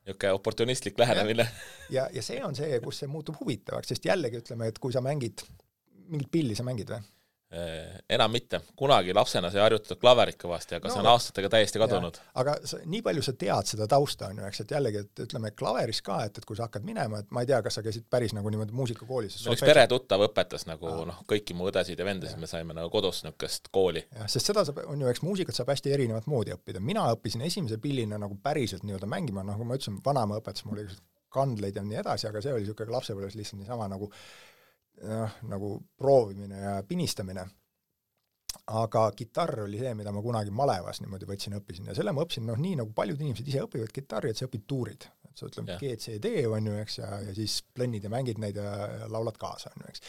Niisugune oportunistlik lähenemine. Ja see on see, kus see muutub huvitavaks, sest jällegi ütleme, et kui sa mingit pilli sa mängid või? Enam mitte. Kunagi lapsena sai harjutada klaverit kõvasti, aga see on aastatega täiesti kadunud. Aga nii palju sa tead seda tausta, on ju, eks, et jällegi, et ütleme klaveris ka, et kui sa hakkad minema, et ma ei tea, kas sa käisid päris nagu niimoodi muusikakoolis. Üks peretuttav õpetas nagu kõiki mu õdesid ja vendasid, me saime nagu kodus niisugust kooli. Ja, sest seda on ju, eks muusikat saab hästi erinevat moodi õppida. Mina õppisin esimese pillina nagu päriselt nii-öelda mängima, nagu ma ütlesin, vanaema õpetas mulle kandleid ja nii edasi, aga see oli niisugune lapsepõlves lihtsalt niisama nagu proovimine ja pinistamine. Aga kitarr oli see, mida ma kunagi malevas niimoodi õppisin ja selle ma õppisin, nii nagu paljud inimesed ise õpivad kitarri, et sa õpid tuurid. Et sa ütleme G, C, D, on ju, eks, ja siis plennid ja mängid neid ja laulad kaasa, on ju, eks.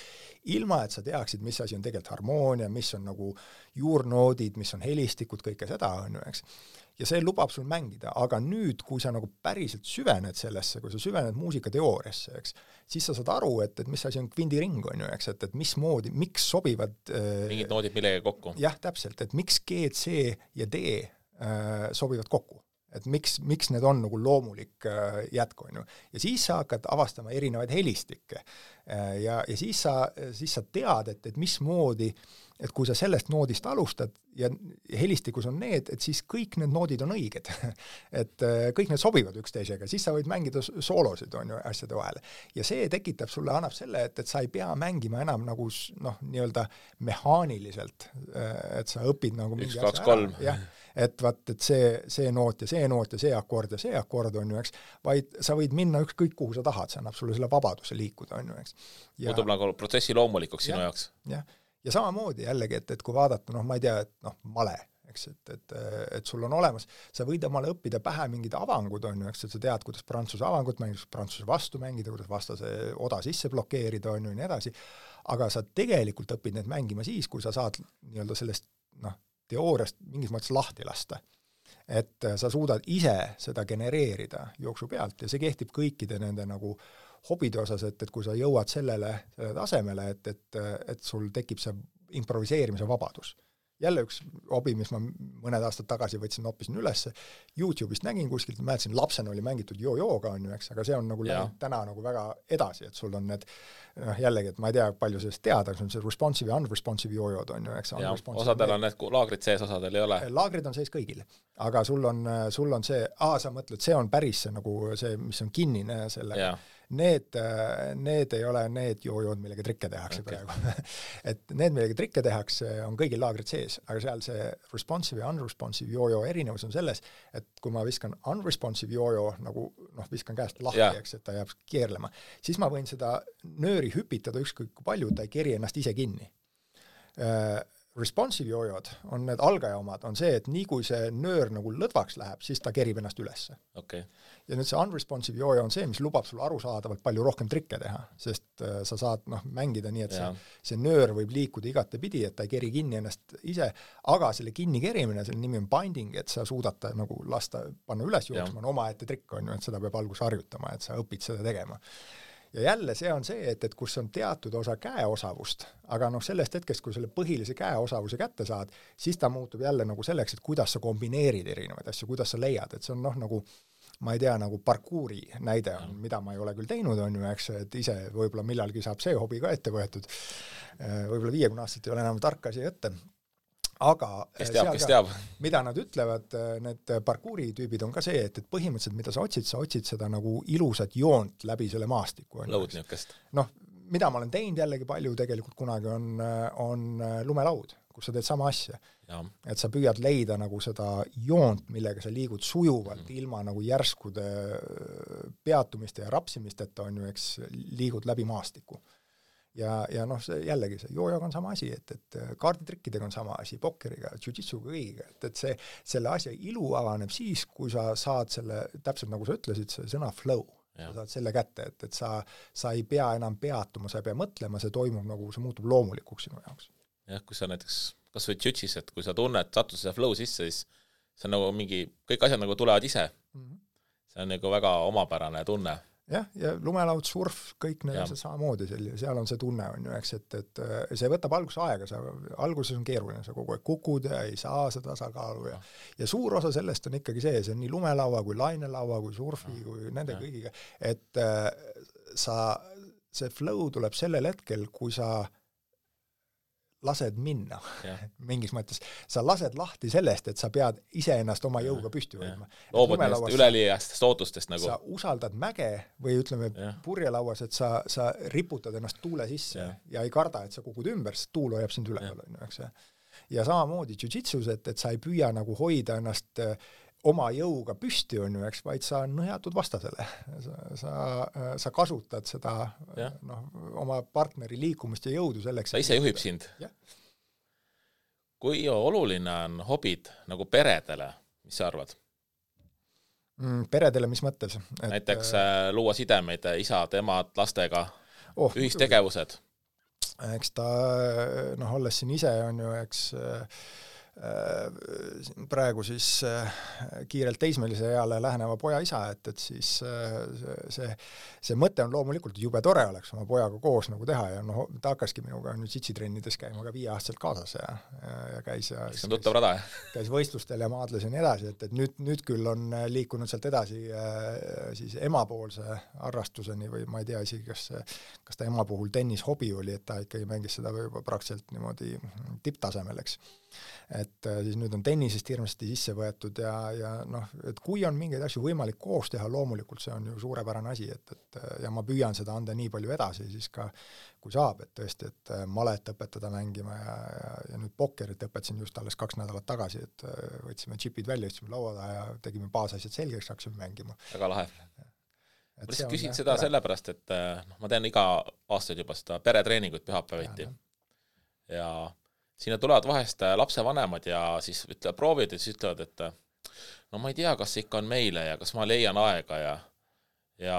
Ilma, et sa teaksid, mis asi on tegelikult harmoonia, mis on nagu juurnoodid, mis on helistikud, kõike seda, on ju, eks. Ja see lubab sul mängida, aga nüüd, kui sa nagu päriselt süvened sellesse, kui sa süvened muusikateooriasse, eks, siis sa saad aru, et mis asi on kvindiring, on ju, eks, et mismoodi, miks sobivad mingid noodid millega kokku. Jah, täpselt, et miks G, C ja D sobivad kokku. Et miks need on nagu loomulik jätku, on ju. Ja siis sa hakkad avastama erinevaid helistikke. Ja siis sa tead, et mismoodi, et kui sa sellest noodist alustad ja helistikus on need, et siis kõik need noodid on õiged. Et kõik need sobivad üksteisega, siis sa võid mängida soolosid, on ju, asjade vahele. Ja see tekitab sulle, annab selle, et sa ei pea mängima enam nagu nii-öelda mehaaniliselt, et sa õpid nagu mingi 1, 2, 3. Jah, et vaat, et see noot ja see akord ja see akord, on ju, eks, vaid sa võid minna ükskõik kuhu sa tahad, see annab sulle selle vabaduse liikuda, on ju, eks. Muutub nagu protsessi loomulikuks sinu jaoks. Jah. Ja samamoodi jällegi, et kui vaadata, ma ei tea, et male, eks, et sul on olemas, sa võid omale õppida pähe mingid avangud, on ju, eks, et sa tead, kuidas prantsuse avangut mängida, prantsuse vastu mängida, kuidas vastase oda sisse blokeerida, on ju, nii edasi, aga sa tegelikult õpid need mängima siis, kui sa saad nii-öelda sellest, teooriast mingis mõttes lahti lasta. Et sa suudad ise seda genereerida jooksu pealt ja see kehtib kõikide nende nagu hobide osas, et kui sa jõuad sellele tasemele, et sul tekib see improviseerimise vabadus. jälle üks hobi, mis ma mõned aastad tagasi võtsin, hoppisin üles, YouTube'ist nägin kuskilt, mäletasin, lapsena oli mängitud joo-jooga, on ju, eks, aga see on nagu täna nagu väga edasi, et sul on need, jällegi, et ma ei tea, palju sellest teada, aga see responsive ja unresponsive joo-jood on ju, eks. Osadel on need laagrid sees, osadel ei ole. Laagrid on sees kõigil, aga sul on see, sa mõtled, see on päris see, nagu see, mis on kinnine sellega. Need ei ole need joo-jood, millega trikke tehakse praegu. Et need, millega trikke tehakse, on kõigil laagrid sees, aga seal see responsive ja unresponsive joo-joo erinevus on selles, et kui ma viskan unresponsive joo-joo, nagu viskan käest lahti, eks, et ta jääb keerlema, siis ma võin seda nööri hüpitada ükskõik kui palju, ta ei keri ennast ise kinni. Responsive joo-jood on need algaja omad, on see, et nii kui see nöör nagu lõdvaks läheb, siis ta kerib ennast ülesse. Okay. Ja nüüd see unresponsive joo-joo on see, mis lubab sul arusaadavalt palju rohkem trikke teha, sest sa saad mängida nii, et see nöör võib liikuda igate pidi, et ta ei keri kinni ennast ise, aga selle kinni kerimine, selle nimi on binding, et sa suudad ta nagu lasta, panna üles jooksma, on omaette trikk, on ju, et seda peab alguses harjutama, et sa õpid seda tegema. Ja jälle see on see, et kus on teatud osa käeosavust, aga sellest hetkest, kui selle põhilise käeosavuse kätte saad, siis ta muutub jälle nagu selleks, et kuidas sa kombineerid erinevaid asju, kuidas sa leiad, et see on nagu, ma ei tea, nagu parkuuri näide on, mida ma ei ole küll teinud, on ju, eks, et ise võib-olla millalgi saab see hobi ka ette võetud, võib-olla 50 aastat ei ole enam tark asi ette, aga kes teab. Mida nad ütlevad, need parkuuri tüübid on ka see, et põhimõtteliselt, mida sa otsid seda nagu ilusat joont läbi selle maastiku. Lõud niukest. Mida ma olen teinud jällegi palju tegelikult kunagi on lumelaud, kus sa teed sama asja. Ja. Et sa püüad leida nagu seda joont, millega sa liigud sujuvalt ilma nagu järskude peatumiste ja rapsimisteta on ju, eks liigud läbi maastiku. Ja see jällegi see joo-jooga on sama asi, et kaarditrikkidega on sama asi, pokkeriga, jiu-jitsuga kõigiga, et selle asja ilu avaneb siis, kui sa saad selle, täpselt nagu sa ütlesid, see sõna flow, sa saad selle kätte, et sa ei pea enam peatuma, sa ei pea mõtlema, see toimub nagu, see muutub loomulikuks sinu jaoks. Jah, kui sa näiteks, kas või jiu-jitsus, et kui sa tunned, satud see flow sisse, siis see on nagu mingi, kõik asjad nagu tulevad ise. See on nagu väga omapärane tunne. Ja lumelaud, surf, kõik need on samamoodi, seal on see tunne, on ju, eks, et see võtab alguses aega, alguses on keeruline, sa kogu aeg kukud ja ei saa seda tasakaalu ja suur osa sellest on ikkagi see on nii lumelaua kui lainelaua kui surfi kui nende kõigiga, et see flow tuleb sellel hetkel, kui sa lased minna mingis mõttes. Sa lased lahti sellest, et sa pead iseennast oma jõuga püsti võtma. Loobud neist üleliiastest ootustest nagu. Sa usaldad mäge või ütleme purjelauas, et sa riputad ennast tuule sisse ja ei karda, et sa kukud ümber, sest tuul hoiab sind üleval. Ja samamoodi jiu-jitsus, et sa ei püüa nagu hoida ennast oma jõuga püsti on ju, eks, vaid sa nõjatud vastasele. Sa kasutad seda oma partneri liikumist ja jõudu selleks. Ta ise juhib sind. Kui oluline on hobid nagu peredele, mis sa arvad? Peredele, mis mõttes? Näiteks luua sidemeid isad, emad, lastega, ühistegevused. Eks ta, olles siin ise on ju, eks praegu siis kiirelt teismelise eale läheneva poja isa, et siis see mõte on loomulikult jube tore oleks oma pojaga koos nagu teha ja ta hakkaski minuga nüüd sitsitrennides käima ka 5-aastaselt kaasas ja käis käis võistlustel ja maadles ja nii edasi, et nüüd küll on liikunud sealt edasi siis emapoolse harrastuseni või ma ei tea isegi, kas ta ema puhul tennishobi oli, et ta ikkagi mängis seda juba praktiliselt niimoodi tipptasemel, eks. Et siis nüüd on tennisest hirmsasti sisse võetud ja et kui on mingeid asju võimalik koos teha, loomulikult see on ju suurepärane asi, et ja ma püüan seda anda nii palju edasi siis ka, kui saab, et tõesti, et malet õpetada mängima ja nüüd pokkerit õpetasin just alles 2 nädalat tagasi, et võtsime chipid välja, ühtsime laua taha ja tegime baasasjad selgeks, hakkasime mängima. Väga lahe. Ma lihtsalt küsin seda sellepärast, et ma tean iga aastaid juba seda peretreeningut pühapäeviti ja sinna tulevad vahest lapsevanemad ja siis proovid ja siis ütlevad, et ma ei tea, kas see ikka on meile ja kas ma leian aega ja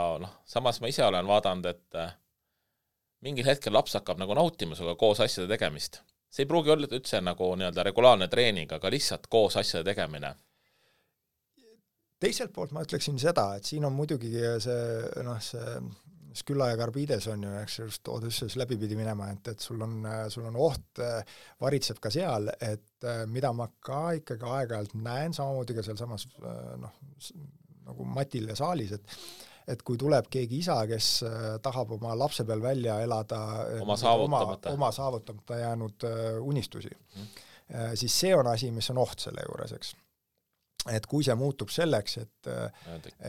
samas ma ise olen vaadanud, et mingil hetkel laps hakkab nagu nautima suga koos asjade tegemist. See ei pruugi olla üldse nagu nii-öelda regulaarne treening, aga lihtsalt koos asjade tegemine. Teiselt poolt ma ütleksin seda, et siin on muidugi Skylla ja Carbides on ju, eks just Odysseus läbi pidi minema, et sul on oht, varitseb ka seal, et mida ma ka ikkagi aeg-ajalt näen, samamoodi ka seal samas nagu Matil ja Saalis, et kui tuleb keegi isa, kes tahab oma lapse peal välja elada oma saavutamata jäänud unistusi, siis see on asi, mis on oht selle juures, eks. Et kui see muutub selleks, et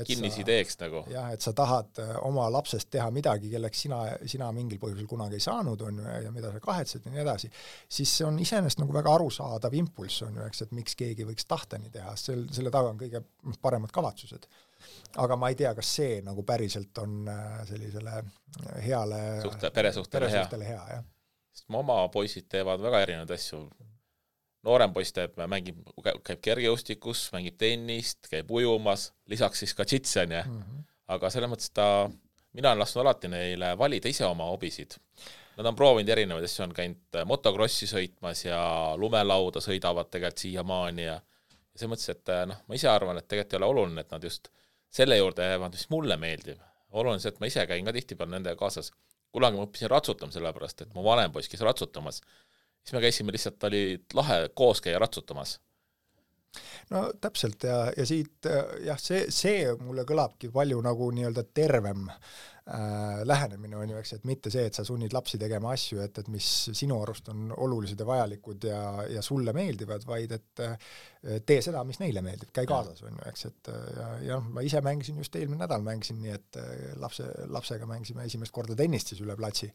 kinnisideeks nagu. Jah, et sa tahad oma lapsest teha midagi, kelleks sina mingil põhjusel kunagi ei saanud, on ju, ja mida sa kahetsed ja nii edasi, siis see on iseenesest nagu väga arusaadav impulss, on ju, eks, et miks keegi võiks tahta nii teha, selle taga on kõige paremad kavatsused. Aga ma ei tea, kas see nagu päriselt on sellisele heale peresuhtele hea. Jah. Sest oma poisid teevad väga erinevaid asju. Noorem poiss käib kergejõustikus, mängib tennist, käib ujumas, lisaks siis ka džitsi, aga selles mõttes mina olen lasknud alati neile valida ise oma hobisid. Nad on proovinud erinevaid asju, on käinud motokrossi sõitmas ja lumelauda sõidavad tegelikult siiamaani ja see mõttes, et ma ise arvan, et tegelikult ei ole oluline, et nad just selle juurde jäävad, mis mulle meeldib. Oluline see, et ma ise käin ka tihtipeale nendega kaasas. Kunagi ma õppisin ratsutama sellepärast, et mu vanem poiss käis ratsutamas. Siis me käisime lihtsalt, oli lahe koos käia ratsutamas. No täpselt ja siit, jah, see mulle kõlabki palju nagu nii-öelda tervem lähenemine on ju, eks, et mitte see, et sa sunnid lapsi tegema asju, et mis sinu arust on olulised ja vajalikud ja sulle meeldivad, vaid et tee seda, mis neile meeldib, käi kaasas on ju, eks, et ja ma ise mängisin just eelmine nädal mängisin nii, et lapsega mängisime esimest korda tennist siis üle platsi.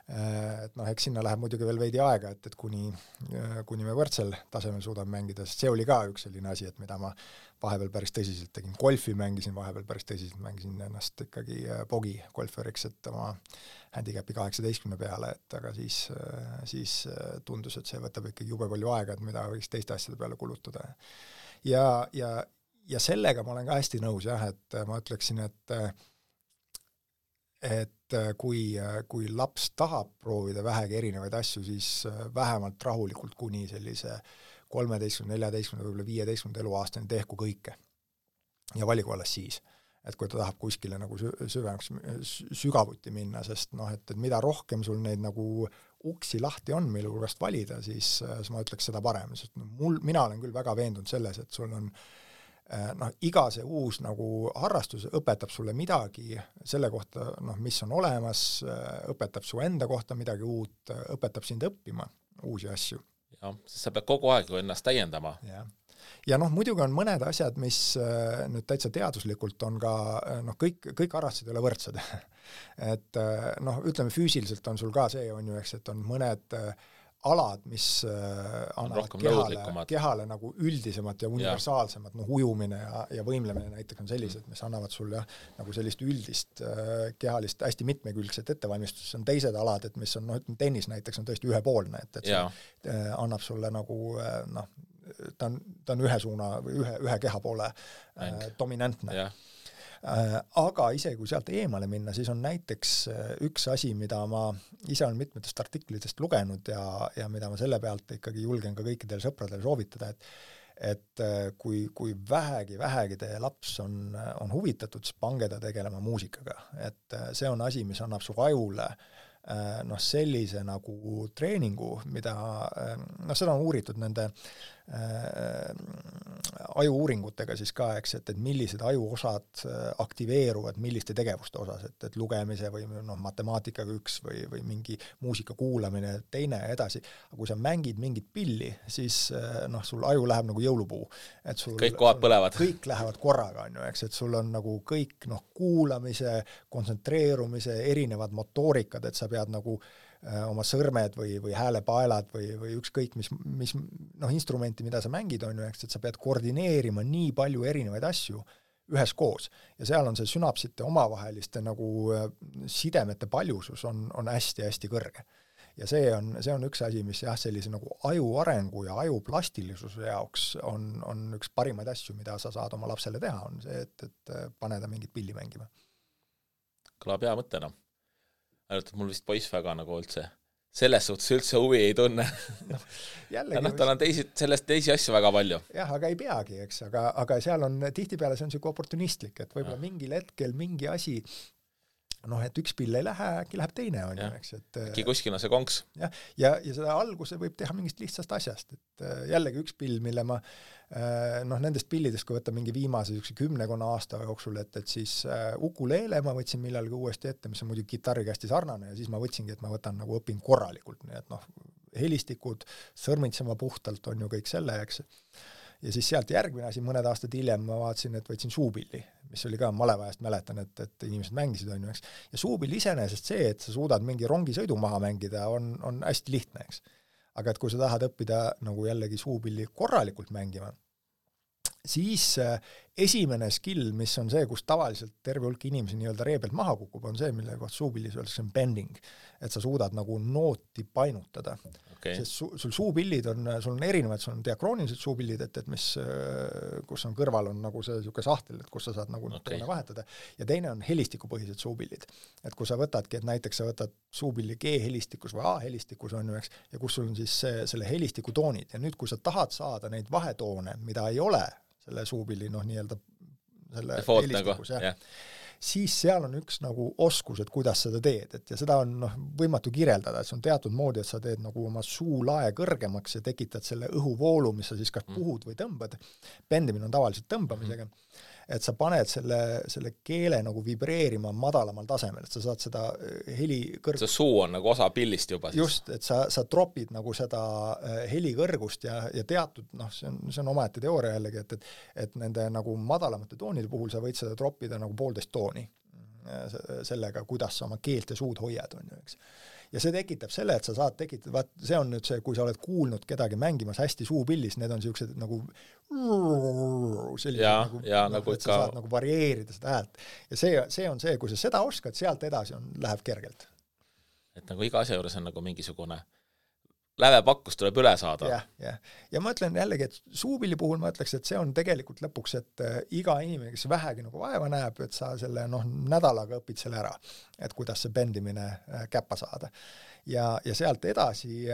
Et eks sinna läheb muidugi veel veidi aega, et kuni me võrdsel tasemel suudame mängida, sest see oli ka üks selline asi, et mida ma vahepeal päris tõsiselt tegin. Golfi mängisin vahepeal päris tõsiselt, mängisin ennast ikkagi bogi golferiks, et oma handicapi 18 peale, et aga siis tundus, et see võtab ikkagi jube palju aega, et mida võiks teiste asjade peale kulutada. Ja sellega ma olen ka hästi nõus, jah, et ma ütleksin, et kui laps tahab proovida vähegi erinevaid asju, siis vähemalt rahulikult kuni sellise 13, 14, võib-olla 15 eluaastani tehku kõike. Ja valigu alles siis, et kui ta tahab kuskile nagu sügavuti minna, sest et mida rohkem sul neid nagu uksi lahti on, mille hulgast valida, siis ma ütleks seda parem, sest mina olen küll väga veendunud selles, et sul on iga see uus nagu harrastus õpetab sulle midagi selle kohta, mis on olemas, õpetab su enda kohta midagi uut, õpetab sind õppima uusi asju. Ja, sest sa pead kogu aeg ennast täiendama. Ja muidugi on mõned asjad, mis nüüd täitsa teaduslikult on ka, kõik harrastused ei ole võrdsed. Et ütleme füüsiliselt on sul ka see, on ju, eks, et on mõned alad, mis annavad kehale nagu üldisemat ja universaalsemat, ujumine ja võimlemine näiteks on sellised, mis annavad sulle nagu sellist üldist kehalist hästi mitmekülgset ettevalmistust. See on teised alad, et mis on, tennis näiteks on tõesti ühepoolne, et see annab sulle nagu, ta on ühe suuna või ühe keha poole dominantne. Aga isegi kui sealt eemale minna, siis on näiteks üks asi, mida ma ise olen mitmetest artiklitest lugenud ja mida ma selle pealt ikkagi julgen ka kõikidele sõpradele soovitada, et kui vähegi teie laps on huvitatud, siis pange ta tegelema muusikaga. Et see on asi, mis annab su ajule sellise nagu treeningu, mida seda on uuritud nende ajuuuringutega siis ka, eks, et millised ajuosad aktiveeruvad milliste tegevuste osas, et lugemise või matemaatikaga üks või mingi muusika kuulamine teine edasi. Aga kui sa mängid mingit pilli, siis sul aju läheb nagu jõulupuu. Et kõik kohad põlevad. Kõik lähevad korraga, on ju, eks, et sul on nagu kõik kuulamise, kontsentreerumise, erinevad motoorikad, et sa pead nagu oma sõrmed või häälepaelad või ükskõik mis instrumenti, mida sa mängid, on ju, eks, et sa pead koordineerima nii palju erinevaid asju üheskoos. Ja seal on see sünapsite omavaheliste nagu sidemete paljusus on hästi-hästi kõrge. Ja see on üks asi, mis sellise nagu aju arengu ja aju plastilisuse jaoks on üks parimaid asju, mida sa saad oma lapsele teha, on see, et pane ta mingit pilli mängima. Kõlab hea mõttena. Ainult, et mul vist poiss väga nagu üldse selles suhtes üldse huvi ei tunne. Tal on sellest teisi asju väga palju. Jah, aga ei peagi, eks, aga seal on tihtipeale see on siuke oportunistlik, et võib-olla mingil hetkel mingi asi noh, et üks pill ei lähe, äkki läheb teine, on ju, eks, et äkki kuskil on see konks. Ja seda alguse võib teha mingist lihtsast asjast, et jällegi üks pill, mille ma noh, nendest pillidest, kui võtta mingi viimase 10 aasta jooksul, et siis ukuleele ma võtsin millalgi uuesti ette, mis on muidugi kitarriga hästi sarnane, ja siis ma võtsingi, et ma võtan nagu õpin korralikult, nii et noh, helistikud, sõrmitsema puhtalt on ju kõik selle, eks. Ja siis sealt järgmine asi, mõned aastad hiljem ma vaatasin, et võtsin suupilli, mis oli ka malevajast mäletan, et inimesed mängisid, on ju, eks. Ja suupill iseenesest see, et sa suudad mingi rongisõidu maha mängida, on hästi lihtne, eks. Aga et kui sa tahad õppida nagu jällegi suupilli korralikult mängima, siis esimene skill, mis on see, kus tavaliselt terve hulk inimesi nii-öelda ree pealt maha kukub, on see, mille kohta suupillis öeldakse bending, et sa suudad nagu nooti painutada. Sest sul suupillid sul on erinevad, sul on diakroonilised suupillid, et mis, kus on kõrval on nagu see siuke sahtel, et kus sa saad nagu toone vahetada, ja teine on helistikupõhised suupillid. Et kui sa võtadki, et näiteks sa võtad suupilli G-helistikus või A-helistikus on ju, eks, ja kus sul on siis selle helistiku toonid, ja nüüd, kui sa tahad saada neid vahetoone, mida ei ole selle suupilli, noh, nii-öelda selle helistikus, siis seal on üks nagu oskus, et kuidas seda teed, et ja seda on võimatu kirjeldada, et see on teatud moodi, et sa teed nagu oma suulae kõrgemaks ja tekitad selle õhuvoolu, mis sa siis kas puhud või tõmbad. Bendimine on tavaliselt tõmbamisega, et sa paned selle keele nagu vibreerima madalamal tasemel, et sa saad seda heli kõrgust. See suu on nagu osa pillist juba siis. Just, et sa tropid nagu seda heli kõrgust ja teatud, see on omaette teooria jällegi, et nende nagu madalamate toonide puhul sa võid seda tropida nagu 1,5 tooni sellega, kuidas sa oma keelt ja suud hoiad, on ju, eks. Ja see tekitab selle, et sa saad tekitada, see on nüüd see, kui sa oled kuulnud kedagi mängimas hästi suupillis, need on siuksed nagu nagu et sa saad nagu varieerida seda häält. Ja see on see, kui sa seda oskad, sealt edasi läheb kergelt. Et nagu iga asja juures on nagu mingisugune lävepakkus tuleb üle saada. Ja ma ütlen jällegi, et suupilli puhul ma ütleks, et see on tegelikult lõpuks, et iga inimene, kes vähegi nagu vaeva näeb, et sa selle nädalaga õpid selle ära, et kuidas see bendimine käppa saada. Ja sealt edasi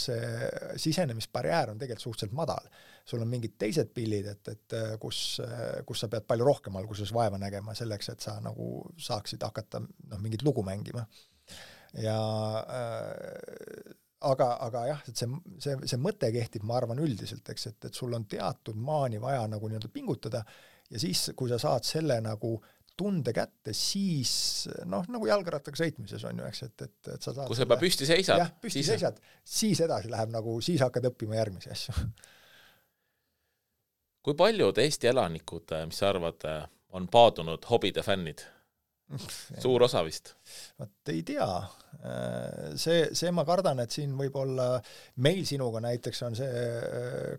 see sisenemisbarjäär on tegelikult suhteliselt madal. Sul on mingid teised pillid, et kus sa pead palju rohkem alguses vaeva nägema selleks, et sa nagu saaksid hakata mingit lugu mängima. Ja aga jah, et see mõte kehtib, ma arvan üldiselt, eks, et sul on teatud maani vaja nagu nii-öelda pingutada ja siis, kui sa saad selle nagu tunde kätte, siis nagu jalgrattaga sõitmises on ju, eks, et sa saad kui sa juba püsti seisad. Jah, püsti seisad, siis edasi läheb nagu, siis hakkad õppima järgmisi asju. Kui paljud Eesti elanikud, mis sa arvad, on paadunud hobide fännid? Suur osa vist? Ei tea. See ma kardan, et siin võib olla, meil sinuga näiteks on see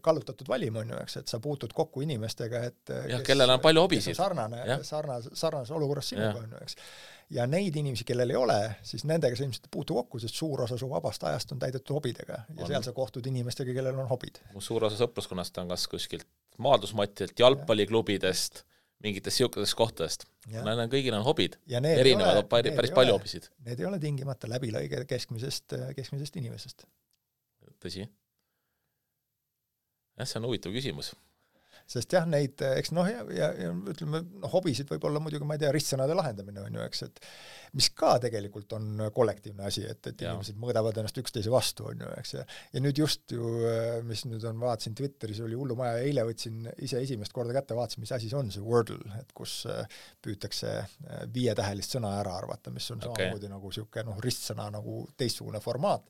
kallutatud valim, on ju, eks, et sa puutud kokku inimestega, et kellel on palju hobisid. Sarnases olukorras sinuga, on ju, eks. Ja neid inimesi, kellel ei ole, siis nendega sa ilmselt puutu kokku, sest suur osa su vabast ajast on täidetud hobidega ja seal sa kohtud inimestega, kellel on hobid. Mu suur osa sõpruskonnast on kas kuskilt maadlusmatilt, jalgpalliklubidest, mingitest siukesest kohtadest. Kõigil on hobid. Erinevad päris palju hobisid. Need ei ole tingimata läbilõige keskmisest inimesest. Tõsi. See on huvitav küsimus. Sest jah, neid, eks ja ütleme, hobisid võib olla muidugi, ma ei tea, ristsõnade lahendamine on ju, eks, et mis ka tegelikult on kollektiivne asi, et inimesed mõõdavad ennast üksteise vastu, on ju, eks, ja nüüd just ju, mis nüüd on, vaatasin Twitteris, oli hullumaja, eile võtsin ise esimest korda kätte, vaatasin, mis asi see on, see Wordle, et kus püütakse 5-tähelist sõna ära arvata, mis on samamoodi nagu siuke ristsõna nagu teistsugune formaat,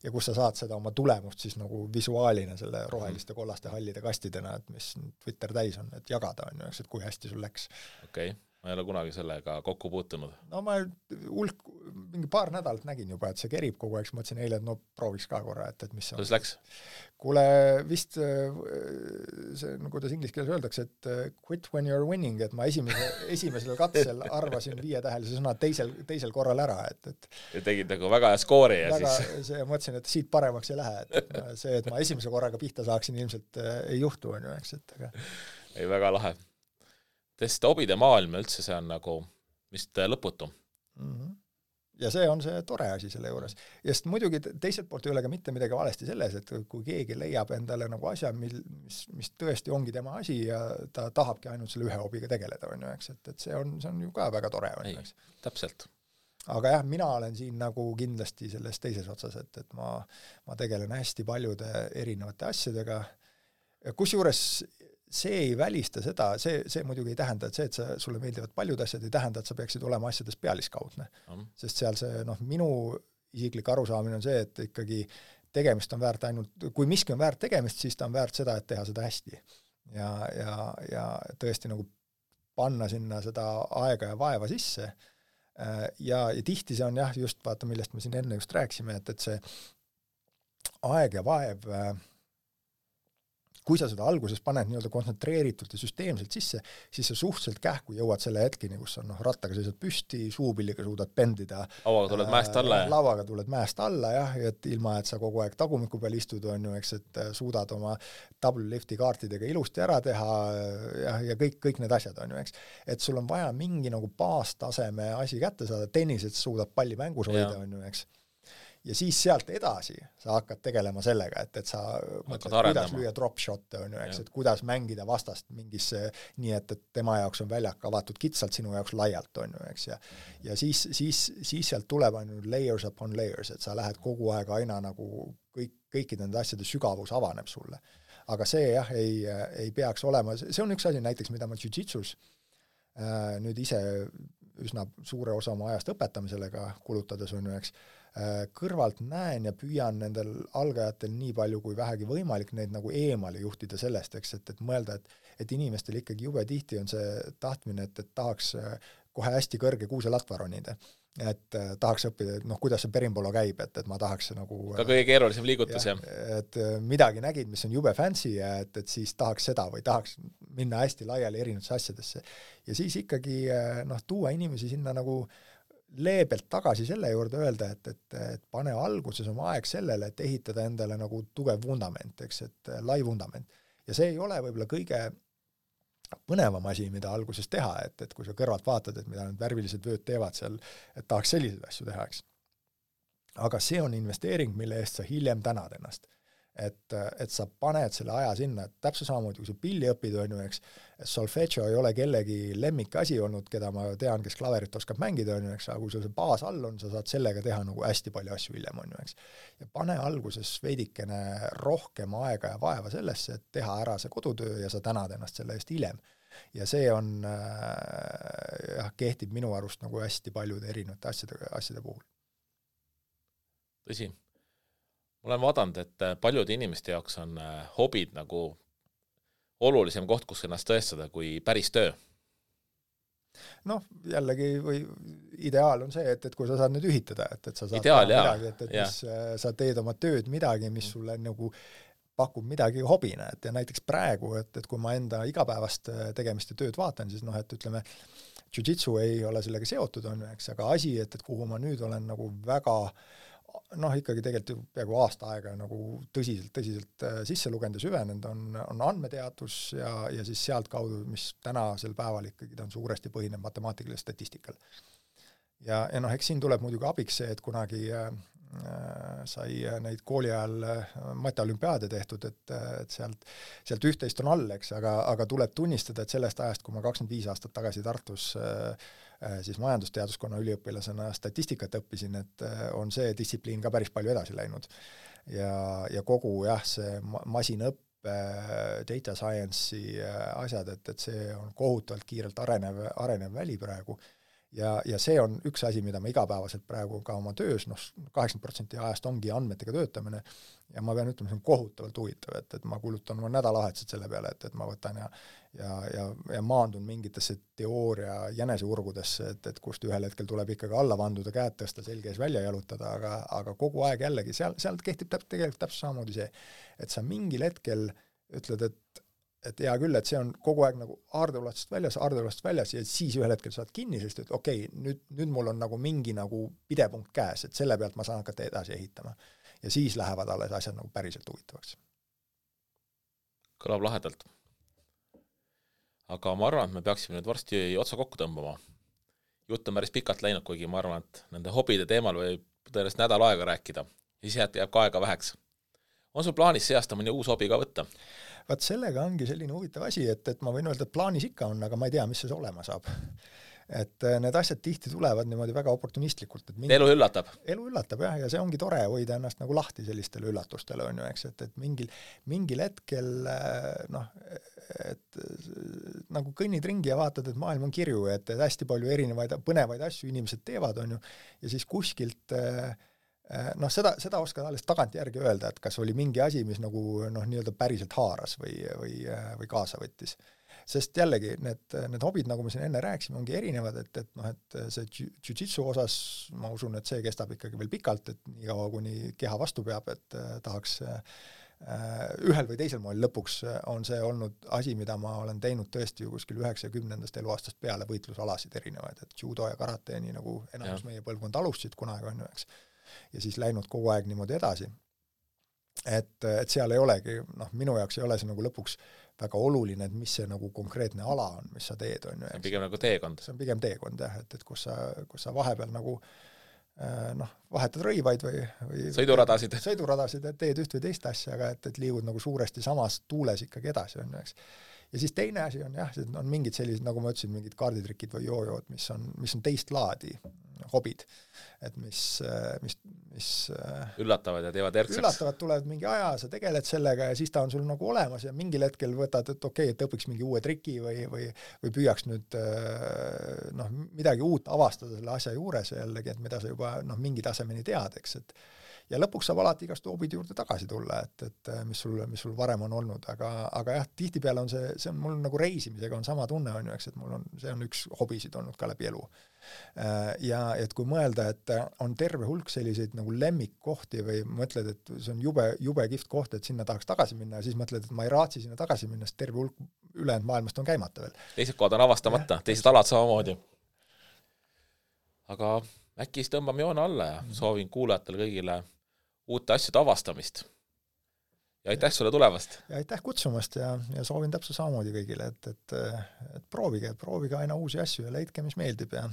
ja kus sa saad seda oma tulemust siis nagu visuaalina selle roheliste, kollaste, hallide kastidena, et mis Twitter täis on, et jagada on ju, eks, et kui hästi sul läks. Okei. Ma ei ole kunagi sellega kokku puutunud. Ma mingi paar nädalat nägin juba, et see kerib kogu aeg, mõtlesin eile, et prooviks ka korra, et mis see on. Kuidas läks? Kuule, vist see, kuidas inglise keeles öeldakse, et quit when you're winning, et ma esimesel katsel arvasin 5-tähelise sõna teisel korral ära, et ja tegid nagu väga hea skoori ja siis mõtlesin, et siit paremaks ei lähe, et see, et ma esimese korraga pihta saaksin, ilmselt ei juhtu, on ju, eks, et aga ei, väga lahe. Sest hobide maailm üldse see on nagu vist lõputu. ja see on see tore asi selle juures. Ja sest muidugi teiselt poolt ei ole ka mitte midagi valesti selles, et kui keegi leiab endale nagu asja, mis tõesti ongi tema asi ja ta tahabki ainult selle ühe hobiga tegeleda, on ju, eks, et see on ju ka väga tore, on ju, eks. Täpselt. Aga jah, mina olen siin nagu kindlasti selles teises otsas, et ma tegelen hästi paljude erinevate asjadega, kusjuures see ei välista seda, see muidugi ei tähenda, et sulle meeldivad paljud asjad, ei tähenda, et sa peaksid olema asjades pealiskaudne. Sest seal see, minu isiklik arusaamine on see, et ikkagi tegemist on väärt ainult, kui miski on väärt tegemist, siis ta on väärt seda, et teha seda hästi. Ja tõesti nagu panna sinna seda aega ja vaeva sisse. Ja tihti see on jah, just vaata, millest me siin enne just rääkisime, et see aeg ja vaev, kui sa seda alguses paned nii-öelda kontsentreeritult ja süsteemselt sisse, siis sa suhteliselt kähku jõuad selle hetkini, kus on rattaga seisad püsti, suupilliga suudad pendida. Lauaga tuled mäest alla. Lauaga tuled mäest alla, jah, et ilma, et sa kogu aeg tagumiku peal istud, on ju, eks, et suudad oma W-lifti kaartidega ilusti ära teha ja kõik need asjad, on ju, eks. Et sul on vaja mingi nagu baastaseme asi kätte saada, tennises suudad palli mängus hoida, on ju, eks. Ja siis sealt edasi sa hakkad tegelema sellega, et sa mõtled, kuidas lüüa drop shot'e, on ju, eks, et kuidas mängida vastast mingisse nii, et tema jaoks on väljak avatud kitsalt, sinu jaoks laialt, on ju, eks, ja siis sealt tuleb ainult layers upon layers, et sa lähed kogu aeg aina nagu kõikide nende asjade sügavus avaneb sulle. Aga see jah, ei peaks olema, see on üks asi näiteks, mida ma jiu-jitsus nüüd ise üsna suure osa oma ajast õpetamiselega kulutades, on ju, eks, kõrvalt näen ja püüan nendel algajatel nii palju kui vähegi võimalik neid nagu eemale juhtida sellest, eks, et mõelda, et inimestel ikkagi jube tihti on see tahtmine, et tahaks kohe hästi kõrge kuuselatva ronida. Et tahaks õppida, et kuidas see perimbolo käib, et ma tahaks nagu ka kõige keerulisem liigutus, jah. Et midagi nägid, mis on jube fancy ja et siis tahaks seda või tahaks minna hästi laiali erinevatesse asjadesse. Ja siis ikkagi tuua inimesi sinna nagu leebelt tagasi selle juurde öelda, et pane alguses oma aeg sellele, et ehitada endale nagu tugev vundament, eks, et lai vundament. Ja see ei ole võib-olla kõige põnevam asi, mida alguses teha, et kui sa kõrvalt vaatad, et mida need värvilised vööd teevad seal, et tahaks selliseid asju teha, eks. Aga see on investeering, mille eest sa hiljem tänad ennast. Et sa paned selle aja sinna, et täpselt samamoodi, kui sa pilli õpid, on ju, eks, solfeggio ei ole kellegi lemmik asi olnud, keda ma tean, kes klaverit oskab mängida, on ju, eks, aga kui sul see baas all on, sa saad sellega teha nagu hästi palju asju hiljem, on ju, eks. Ja pane alguses veidikene rohkem aega ja vaeva sellesse, et teha ära see kodutöö ja sa tänad ennast selle eest hiljem. Ja see on, kehtib minu arust nagu hästi paljude erinevate asjade puhul. Tõsi. Ma olen vaadanud, et paljude inimeste jaoks on hobid nagu olulisem koht, kus ennast tõestada kui päris töö. Jällegi või ideaal on see, et kui sa saad nüüd ühitada, et sa saad ideaal, midagi, et sa teed oma tööd midagi, mis sulle nagu pakub midagi hobina, et ja näiteks praegu, et kui ma enda igapäevast tegemist ja tööd vaatan, siis et ütleme, jiu-jitsu ei ole sellega seotud, on, eks, aga asi, et kuhu ma nüüd olen nagu väga ikkagi tegelikult peaaegu aasta aega nagu tõsiselt sisse lugenud ja süvenenud on andmeteadus ja siis sealt kaudu, mis tänasel päeval ikkagi ta on suuresti põhineb matemaatikalisel statistikal. Ja eks siin tuleb muidugi abiks see, et kunagi sai neid kooli ajal mateolümpiaade tehtud, et sealt üht-teist on all, eks, aga tuleb tunnistada, et sellest ajast, kui ma 25 aastat tagasi Tartus siis majandusteaduskonna üliõpilasena statistikat õppisin, et on see distsipliin ka päris palju edasi läinud. Ja kogu see masinõppe, data science'i asjad, et see on kohutavalt kiirelt arenev väli praegu. Ja see on üks asi, mida ma igapäevaselt praegu ka oma töös, 80% ajast ongi andmetega töötamine ja ma pean ütlema, see on kohutavalt huvitav, et ma kulutan oma nädalavahetused selle peale, et ma võtan ja maandun mingitesse teooria jäneseurgudesse, et kust ühel hetkel tuleb ikkagi alla vanduda, käed tõsta, selge ees välja jalutada, aga kogu aeg jällegi, sealt kehtib tegelikult täpselt samamoodi see, et sa mingil hetkel ütled, et hea küll, et see on kogu aeg nagu aardeulastust väljas ja siis ühel hetkel saad kinni, sest et okei, nüüd mul on nagu mingi nagu pidepunkt käes, et selle pealt ma saan hakata edasi ehitama. Ja siis lähevad alles asjad nagu päriselt huvitavaks. Kõlab lahedalt. Aga ma arvan, et me peaksime nüüd varsti otsa kokku tõmbama. jutt on päris pikalt läinud, kuigi ma arvan, et nende hobide teemal võib tõenäoliselt nädal aega rääkida. Ja siis jääb ka aega väheks. On sul plaanis see aasta mõni uus hobi ka võtta? Vaat sellega ongi selline huvitav asi, et ma võin öelda, et plaanis ikka on, aga ma ei tea, mis see olema saab. Et need asjad tihti tulevad niimoodi väga oportunistlikult. Elu üllatab? Elu üllatab, jah, ja see ongi tore hoida ennast nagu lahti sellistele üllatustele, on ju, eks, et mingil hetkel et nagu kõnnid ringi ja vaatad, et maailm on kirju, et hästi palju erinevaid põnevaid asju inimesed teevad, on ju, ja siis kuskilt seda oskad alles tagantjärgi öelda, et kas oli mingi asi, mis nagu nii-öelda päriselt haaras või kaasa võttis. Sest jällegi, need hobid, nagu me siin enne rääksime, ongi erinevad, et see jiu-jitsu osas, ma usun, et see kestab ikkagi veel pikalt, et nii kaua, kuni keha vastu peab, et tahaks ühel või teisel moel lõpuks on see olnud asi, mida ma olen teinud tõesti ju kuskil 90. eluaastast peale võitlusalasid erinevaid, et judo ja karate, nii nagu enamus meie põlvkond alustasid kunagi, on ju, eks. Ja siis läinud kogu aeg niimoodi edasi. Et seal ei olegi, minu jaoks ei ole see nagu lõpuks väga oluline, et mis see nagu konkreetne ala on, mis sa teed, on ju. See on pigem nagu teekond. See on pigem teekond, jah, et kus sa vahepeal nagu vahetad rõivaid või sõiduradasid, et teed üht või teist asja, aga et liigud nagu suuresti samas tuules ikkagi edasi, on ju, eks. Ja siis teine asi on jah, see on mingid sellised, nagu ma ütlesin, mingid kaarditrikid või joojood, mis on teist laadi hobid, et mis üllatavad ja teevad erksaks. Üllatavad, tulevad mingi aja, sa tegeled sellega ja siis ta on sul nagu olemas ja mingil hetkel võtad, et okei, et õpiks mingi uue triki või püüaks nüüd midagi uut avastada selle asja juures jällegi, et mida sa juba mingi tasemeni tead, eks, et ja lõpuks saab alati igast hobide juurde tagasi tulla, et mis sul varem on olnud, aga jah, tihtipeale on see on mul nagu reisimisega on sama tunne, on ju, eks, et see on üks hobisid olnud ka läbi elu. Ja et kui mõelda, et on terve hulk selliseid nagu lemmikkohti või mõtled, et see on jube kihvt koht, et sinna tahaks tagasi minna ja siis mõtled, et ma ei raatsi sinna tagasi minna, sest terve hulk ülejäänud maailmast on käimata veel. Teised kohad on avastamata, teised alad samamoodi. Aga äkki siis tõmbame joone alla ja soovin kuulajatele kõigile uute asjade avastamist. Ja aitäh sulle tulevast! Ja aitäh kutsumast ja soovin täpselt samamoodi kõigile, et proovige aina uusi asju ja leidke, mis meeldib ja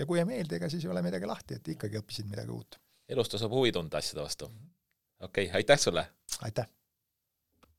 kui ei meeldi, ega siis ei ole midagi lahti, et ikkagi õppisid midagi uut. Elust saab huvi tunda asjade vastu. Okei, aitäh sulle! Aitäh!